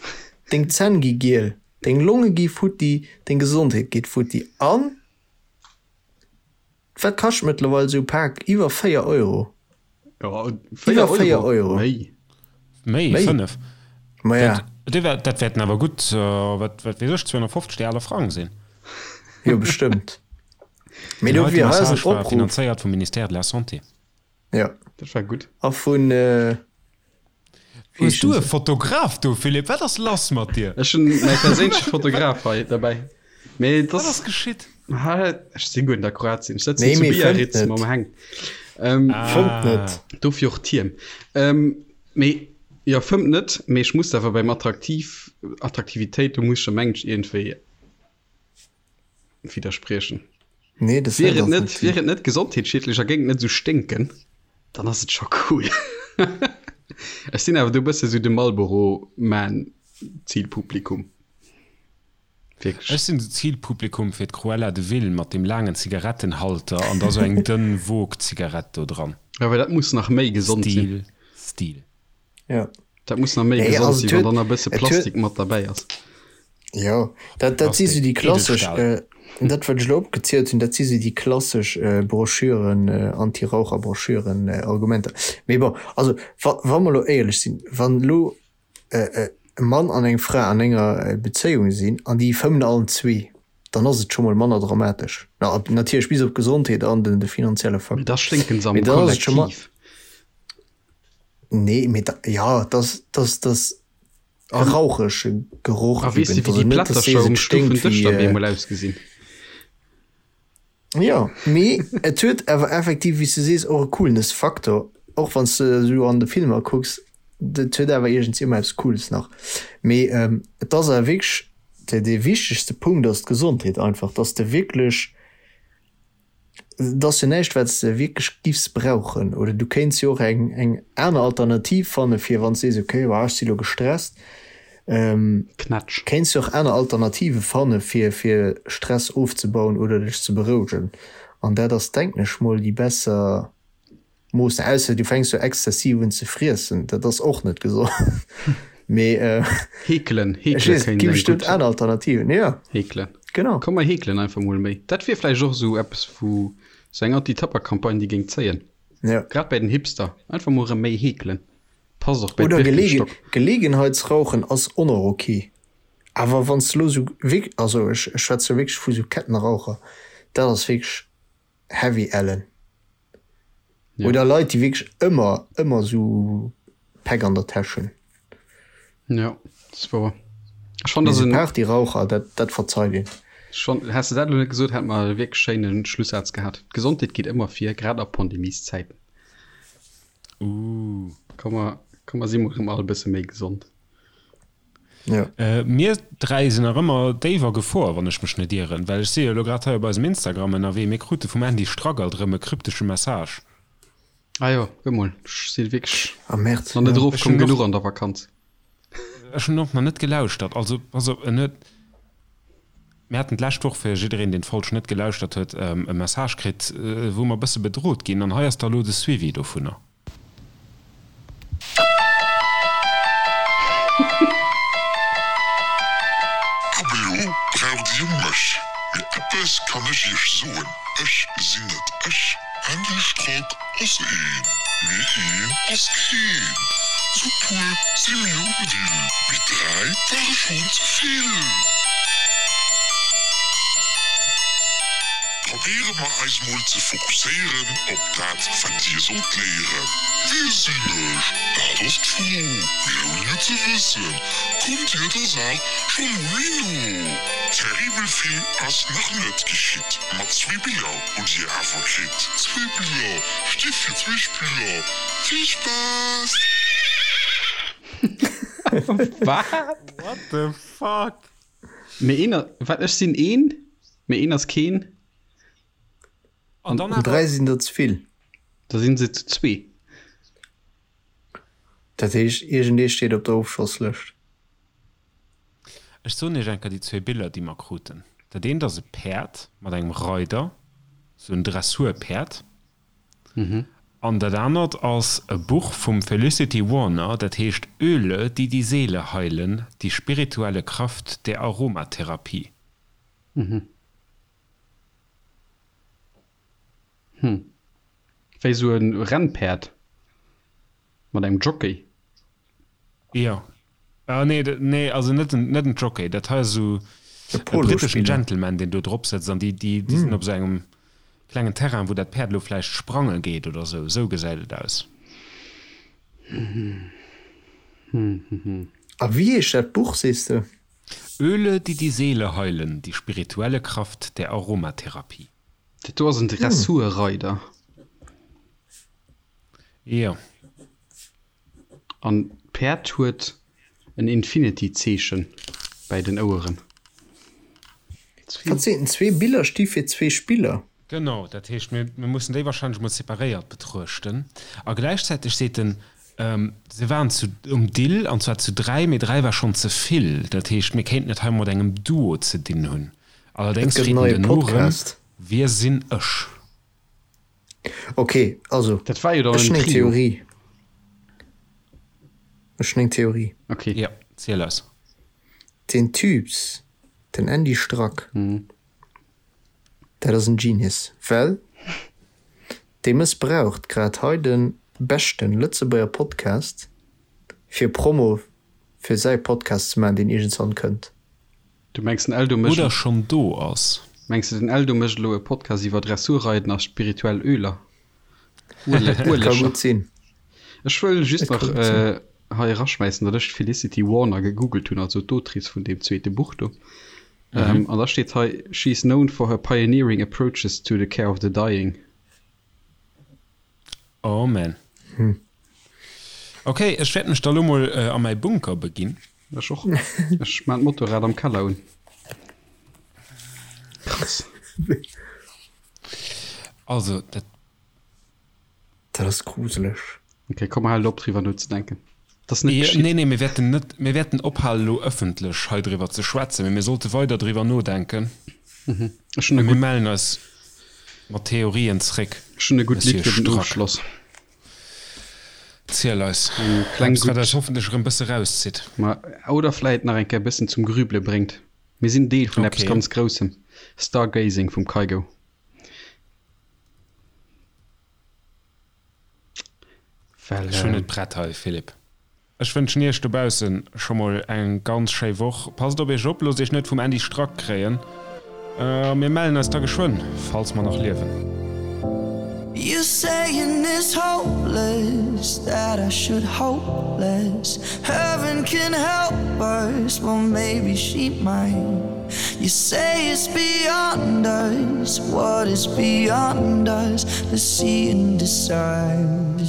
deng Zänn gi giel, deng Longe gi futti, deng Gesondheet geet futti. An wat kascht mëttlerweil esou e Pak? Iwwer 4 Euro. Ja, 4 Iwwer 4 Euro. Euro. Méi. Méi, Méi. 5. Ma ja. Dat, déi wär, dat wäerten awer gutt, wat, wat weess ech, 250 déi aler Frang sinn. Jo, bestëmmt. Mee Den dofir heite hei ass en Message war Opruff. finanzéiert vum Ministère de la Santé. Ja. Dat war gutt. A vun, wéi Hues du heeschen e se? Fotograf do, Philippe? Wat ass lass mat dir? Ech hunn mäi perséinleche Fotograf hei derbäi. Mee Wat ass das geschitt? Ha, ech si guer net a Kroatien. Ech sëtzen Nee, zu mee fëmmt Biarritz net. mam Heng. Ähm, Fëmmt net. Dofir och d'Hiem. Ähm, mee jo, fëmmt net, mee ech muss awer beim Attraktiv, Attraktivitéit, do muss ech der mengen ech iergendwéi widderspriechen. Nee, das Wier et net, wier et net gesondheetsschiedlech a géing et net esou sténken, dann ass et scho cool. Ech sinn awer do e bësse sou de Marlboro Man Zilpublikum. Wierklech. Ech sinn de Zilpublikum fir d'Cruella de Vil mat deem laangen Zigarettenhalter an da sou eng dënn Vogue-Zigarett do dran. Jo, well dat muss nach méi gesond sinn. Stil, Stil. Ja. Dat muss nach méi gesond sinn, wann dann nach e bësse Plastik mat derbäi ass. Jo, dat, dat si sou déi klassesch, dat wat ech elo opgezielt hunn, dat si sou déi klassesch Broschüren, Anti-Raucher-Broschüren, Argumenter. Mee bon, also wa, wa mer elo éierlech sinn, wann elo e Mann an eng Fra an enger Bezéiung sinn an déi fëmmen allen zwee, dann ass et scho mol manner dramatesch. Na, natierlech bis op d'Gesondheet an den, de finanzielle Faktor. Mee da sténken se am Kollektiv. Nee, mee da, jo, dass, dass, dass e rauchege Geroch A weess de, wéi déi Plättercher um Stufendësch dann bemol ausgesinn? Jo, mee et huet awer effektiv, wéi s du sees, och e Coolness-Faktor, och wann s de esou an de Filmer kucks, dat huet awer iergendswéi ëmmer eppes Cooles nach. Mee et ass awer wierklech, dee wichtegste Punkt ass d'Gesondheet einfach, dass de wierklech Et ass jo näischt wat s de wierklech giffs brauchen. Oder du kéints jo och eng eng aner Alternativ fanne fir wann s sees, okay ech si lo gestresst, Knätsch. kéints jo och aner Alternative fanne fir fir Stress ofzebauen oder dech ze berouegen. An dat ass denken ech mol déi besser Mooss, ausser du fänks jo exzessiv un ze friessen, dat ass och net gesond. Mee Heekelen, ech heekele weess, et kéint gi eng bestëmmt gutt. aner Alternativen, jo. Heekelen. Genau. Komm mer heekelen einfach mol méi. Dat wier vläicht och esou eppes wou sou eng Anti-Tabak-Campagne déi géing zéien. Jo. Grad bäi den Hipster. Einfach mol erëm méi heekelen. Passt och bäi Oder Gelegen, d'Birkenstock. Gelegenheitsrauchen ass och nach ok. Awer wann s de lo sou wierk, also ech schwätze wierklech vu sou Kettenraucher, dat ass wierklech heavy ellen. Ja. Oder Leit, déi wierklech ëmmer, ëmmer sou Päck an der Täsch hunn. Ja, dat ass wouer. Ech fand Mee dat sou en. Partyraucher, dat, dat verzeit een. Ech fand, häss de dat elo net gesot, hätt mer e wierklech schéine Schlussaz gehat. D'Gesondheet geet ëmmer vir, grad a Pandemieszäiten. Ooh. Komm mer, komm mer si mol erëm all e bësse méi gesond. Ja. Mir 3 sinn nach ëmmer déif a Gefor, wann ech mech net ieren, well ech si jo elo grad hei op eisem Instagram ënnerwee. Mir krute vum Andy Strack alt erëm e kryptesche Message. Ah jo, kuck mol, ech si wierklech Ah Merde, nach net ja. erof Ech komm hunn och, genuch an der Vakanz. ech hunn och nach net gelauschtert. Also pass op, en huet, mir haten d'lescht Woch, fir jiddereen, deen d'Folg net gelauschtert huet, e Message kritt, wou mer e bësse bedrot ginn an hei ass da elo de Suivi dovunner. Ab elo braucht dir mech, mee eppes kann ech iech soen, ech sinn net ech. Andy Strack ass een, mee een ass keen. Zu puer si mir um Dill, mee 3 ware schonn ze vill. Probéiere mer eis mol ze fokusséieren op dat wat dir sollt léieren. Wie sinn ech? Dat ass d'Fro. Mee ouni et ze wëssen, kommt dir der Saach scho mol méi no. Terribel vill ass nach net geschitt, ma zwee Biller hutt dir awer kritt. Zwee Biller sti fir zwee Spiller. Vill Spaass! Wat? What the fuck? Mee een, wat, ech sinn een, mee een ass keen. An dann An awer. 3 sinn der ze vill. Da sinn se zu zwee. Dat heescht, iergendee steet op der Ofschosslëscht. Ech soen iech eng Kéier déi zwee Biller, déi mer kruten. Dat eent ass e Päerd mat engem Reider, sou en Dressurpäerd. An dat anert ass e Buch vum Felicity Warner, dat heescht Öle, die die Seele heilen, die spirituelle Kraft der Aromatherapie. Hm. Wéi sou e Rennpäerd mat engem Jockey. Jo. Ah nee, nee, also net en, net en Jockey. Dat hei ass esou E e britteschen Polospiller. Gentleman, deen do drop sëtzt an déi, déi, déi sinn op esou engem klengen Terrain, wou dat Päerd elo vläicht sprange geet oder esou. Esou gesäit et aus. A wéi heescht dat Buch, sees de? Öle, die die Seele heilen, die spirituelle Kraft der Aromatherapie. Dat do ass en Dressurreider. Jo. An d'Päerd huet en Infinity-Zeechen bäi den Oueren. Wat seet en? Zwee Biller sti fir zwee Spiller. Genau, dat heescht, mir mussen déi wahrscheinlech mol separéiert betruechten. A gläichzäiteg seet en, se waren zu um Dill, an zwar zu 3, mee 3 war schonn ze vill. Dat heescht, mir kéinten et hei mat engem Duo ze dinn hunn. Et Allerdéngs gëtt freet en en neie duerno erëm, Podcast. Wie sinn ech? Ok, also Dat war jo dann ech en hunn eng Trio. Theorie. Ech hunn eng Theorie. Ok. Jo, ziel eis. Deen Typs, den Andy Strack, dat ass en Genius, well dee mëssbraucht grad hei de beschten Lëtzebuerger Podcast fir Promo fir säi Podcast ze maachen, deen iergendswann kënnt. Du mengs den Eldo mécht. Oder schonn do ass. Mengs de den Eldo mécht elo e Podcast iwwer Dressurreiden a spirituell Öler? Et ka gutt sinn. Ech wëll just nach hei eraschmäissen, datt ech d'Felicity Warner gegoogelt hunn, also d'Autrice vun deem zweete Buch do. An da steet hei, She is known for her pioneering approaches to the care of the dying. Oh man. Ok, ech wäert mech da lo mol a mäi Bunker beginn. Ech och. Ech maan d'Motorrad am Keller un. Krass. Also, dat. Dat ass gruseleg. Ok, komm mer halen op driwwer nozedenken. Dat ass net geschitt. Nee, nee, mir wäerten net, mir wäerten ophalen elo ëffentlech hei driwwer ze schwätzen, mee mir sollte weider driwwer nodenken. Ech hunn e Mir gutt. mellen eis mat Theorien zréck, Ech hunn e gutt Lidd Monsieur fir den Strack. Ofschloss. Ziel eis. Eng kleng Eppes, wat gutt. eis hoffentlech erëm bësse rauszitt. Ma, oder vläit nach eng Kéier e bëssen zum Grübele bréngt. Mir sinn Deel vun eppes Okay. ganz Groussem. Stargazing vum Kygo. Well, Ech hunn et prett hei, Philippe. Ech wënschen iech dobaussen scho mol eng ganz schéi Woch. Passt op iech op, loosst iech net vum Andy Strack kréien. A mir mellen eis da geschwënn, falls mer nach liewen. You saying it's hopeless that I should hope less Heaven can help us, well maybe she might You say it's beyond us, what is beyond us Let's see and decide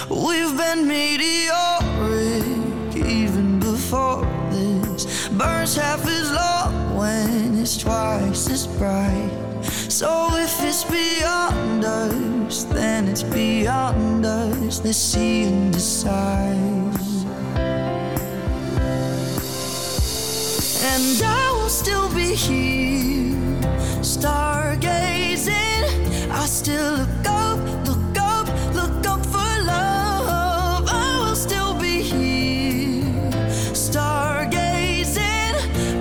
We've been meteoric even before this Burns half as long when it's twice as bright So if it's beyond us, then it's beyond us Let's see and decide And I will still be here stargazing I still look up, look up, look up for love I will still be here stargazing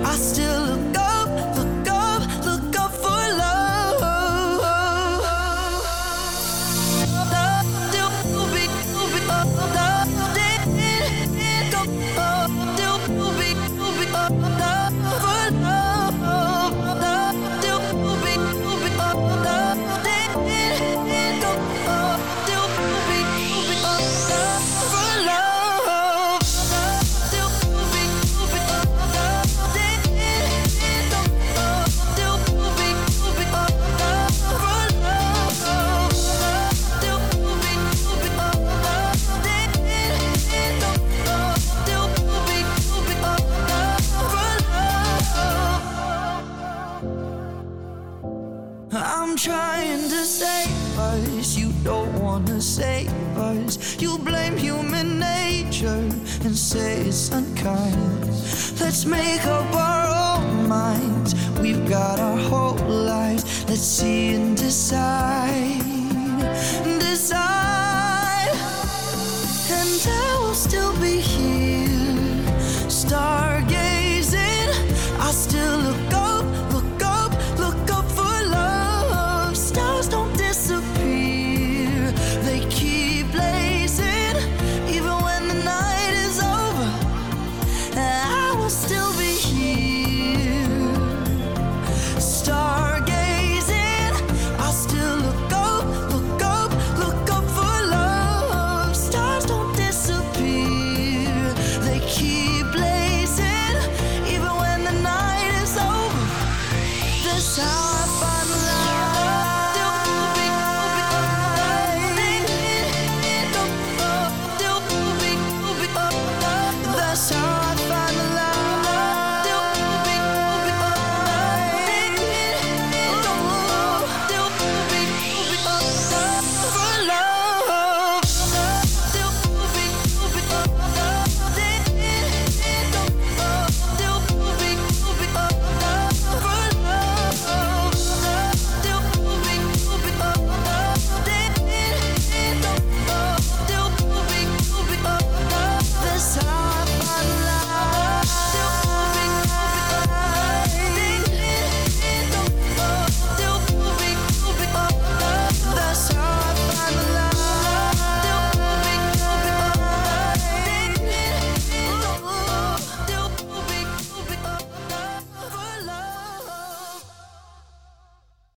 I still look up, look up, look up for love I'm trying to save us, you don't wanna save us. You blame human nature and say it's unkind. Let's make up our own minds. We've got our whole lives. Let's see and decide.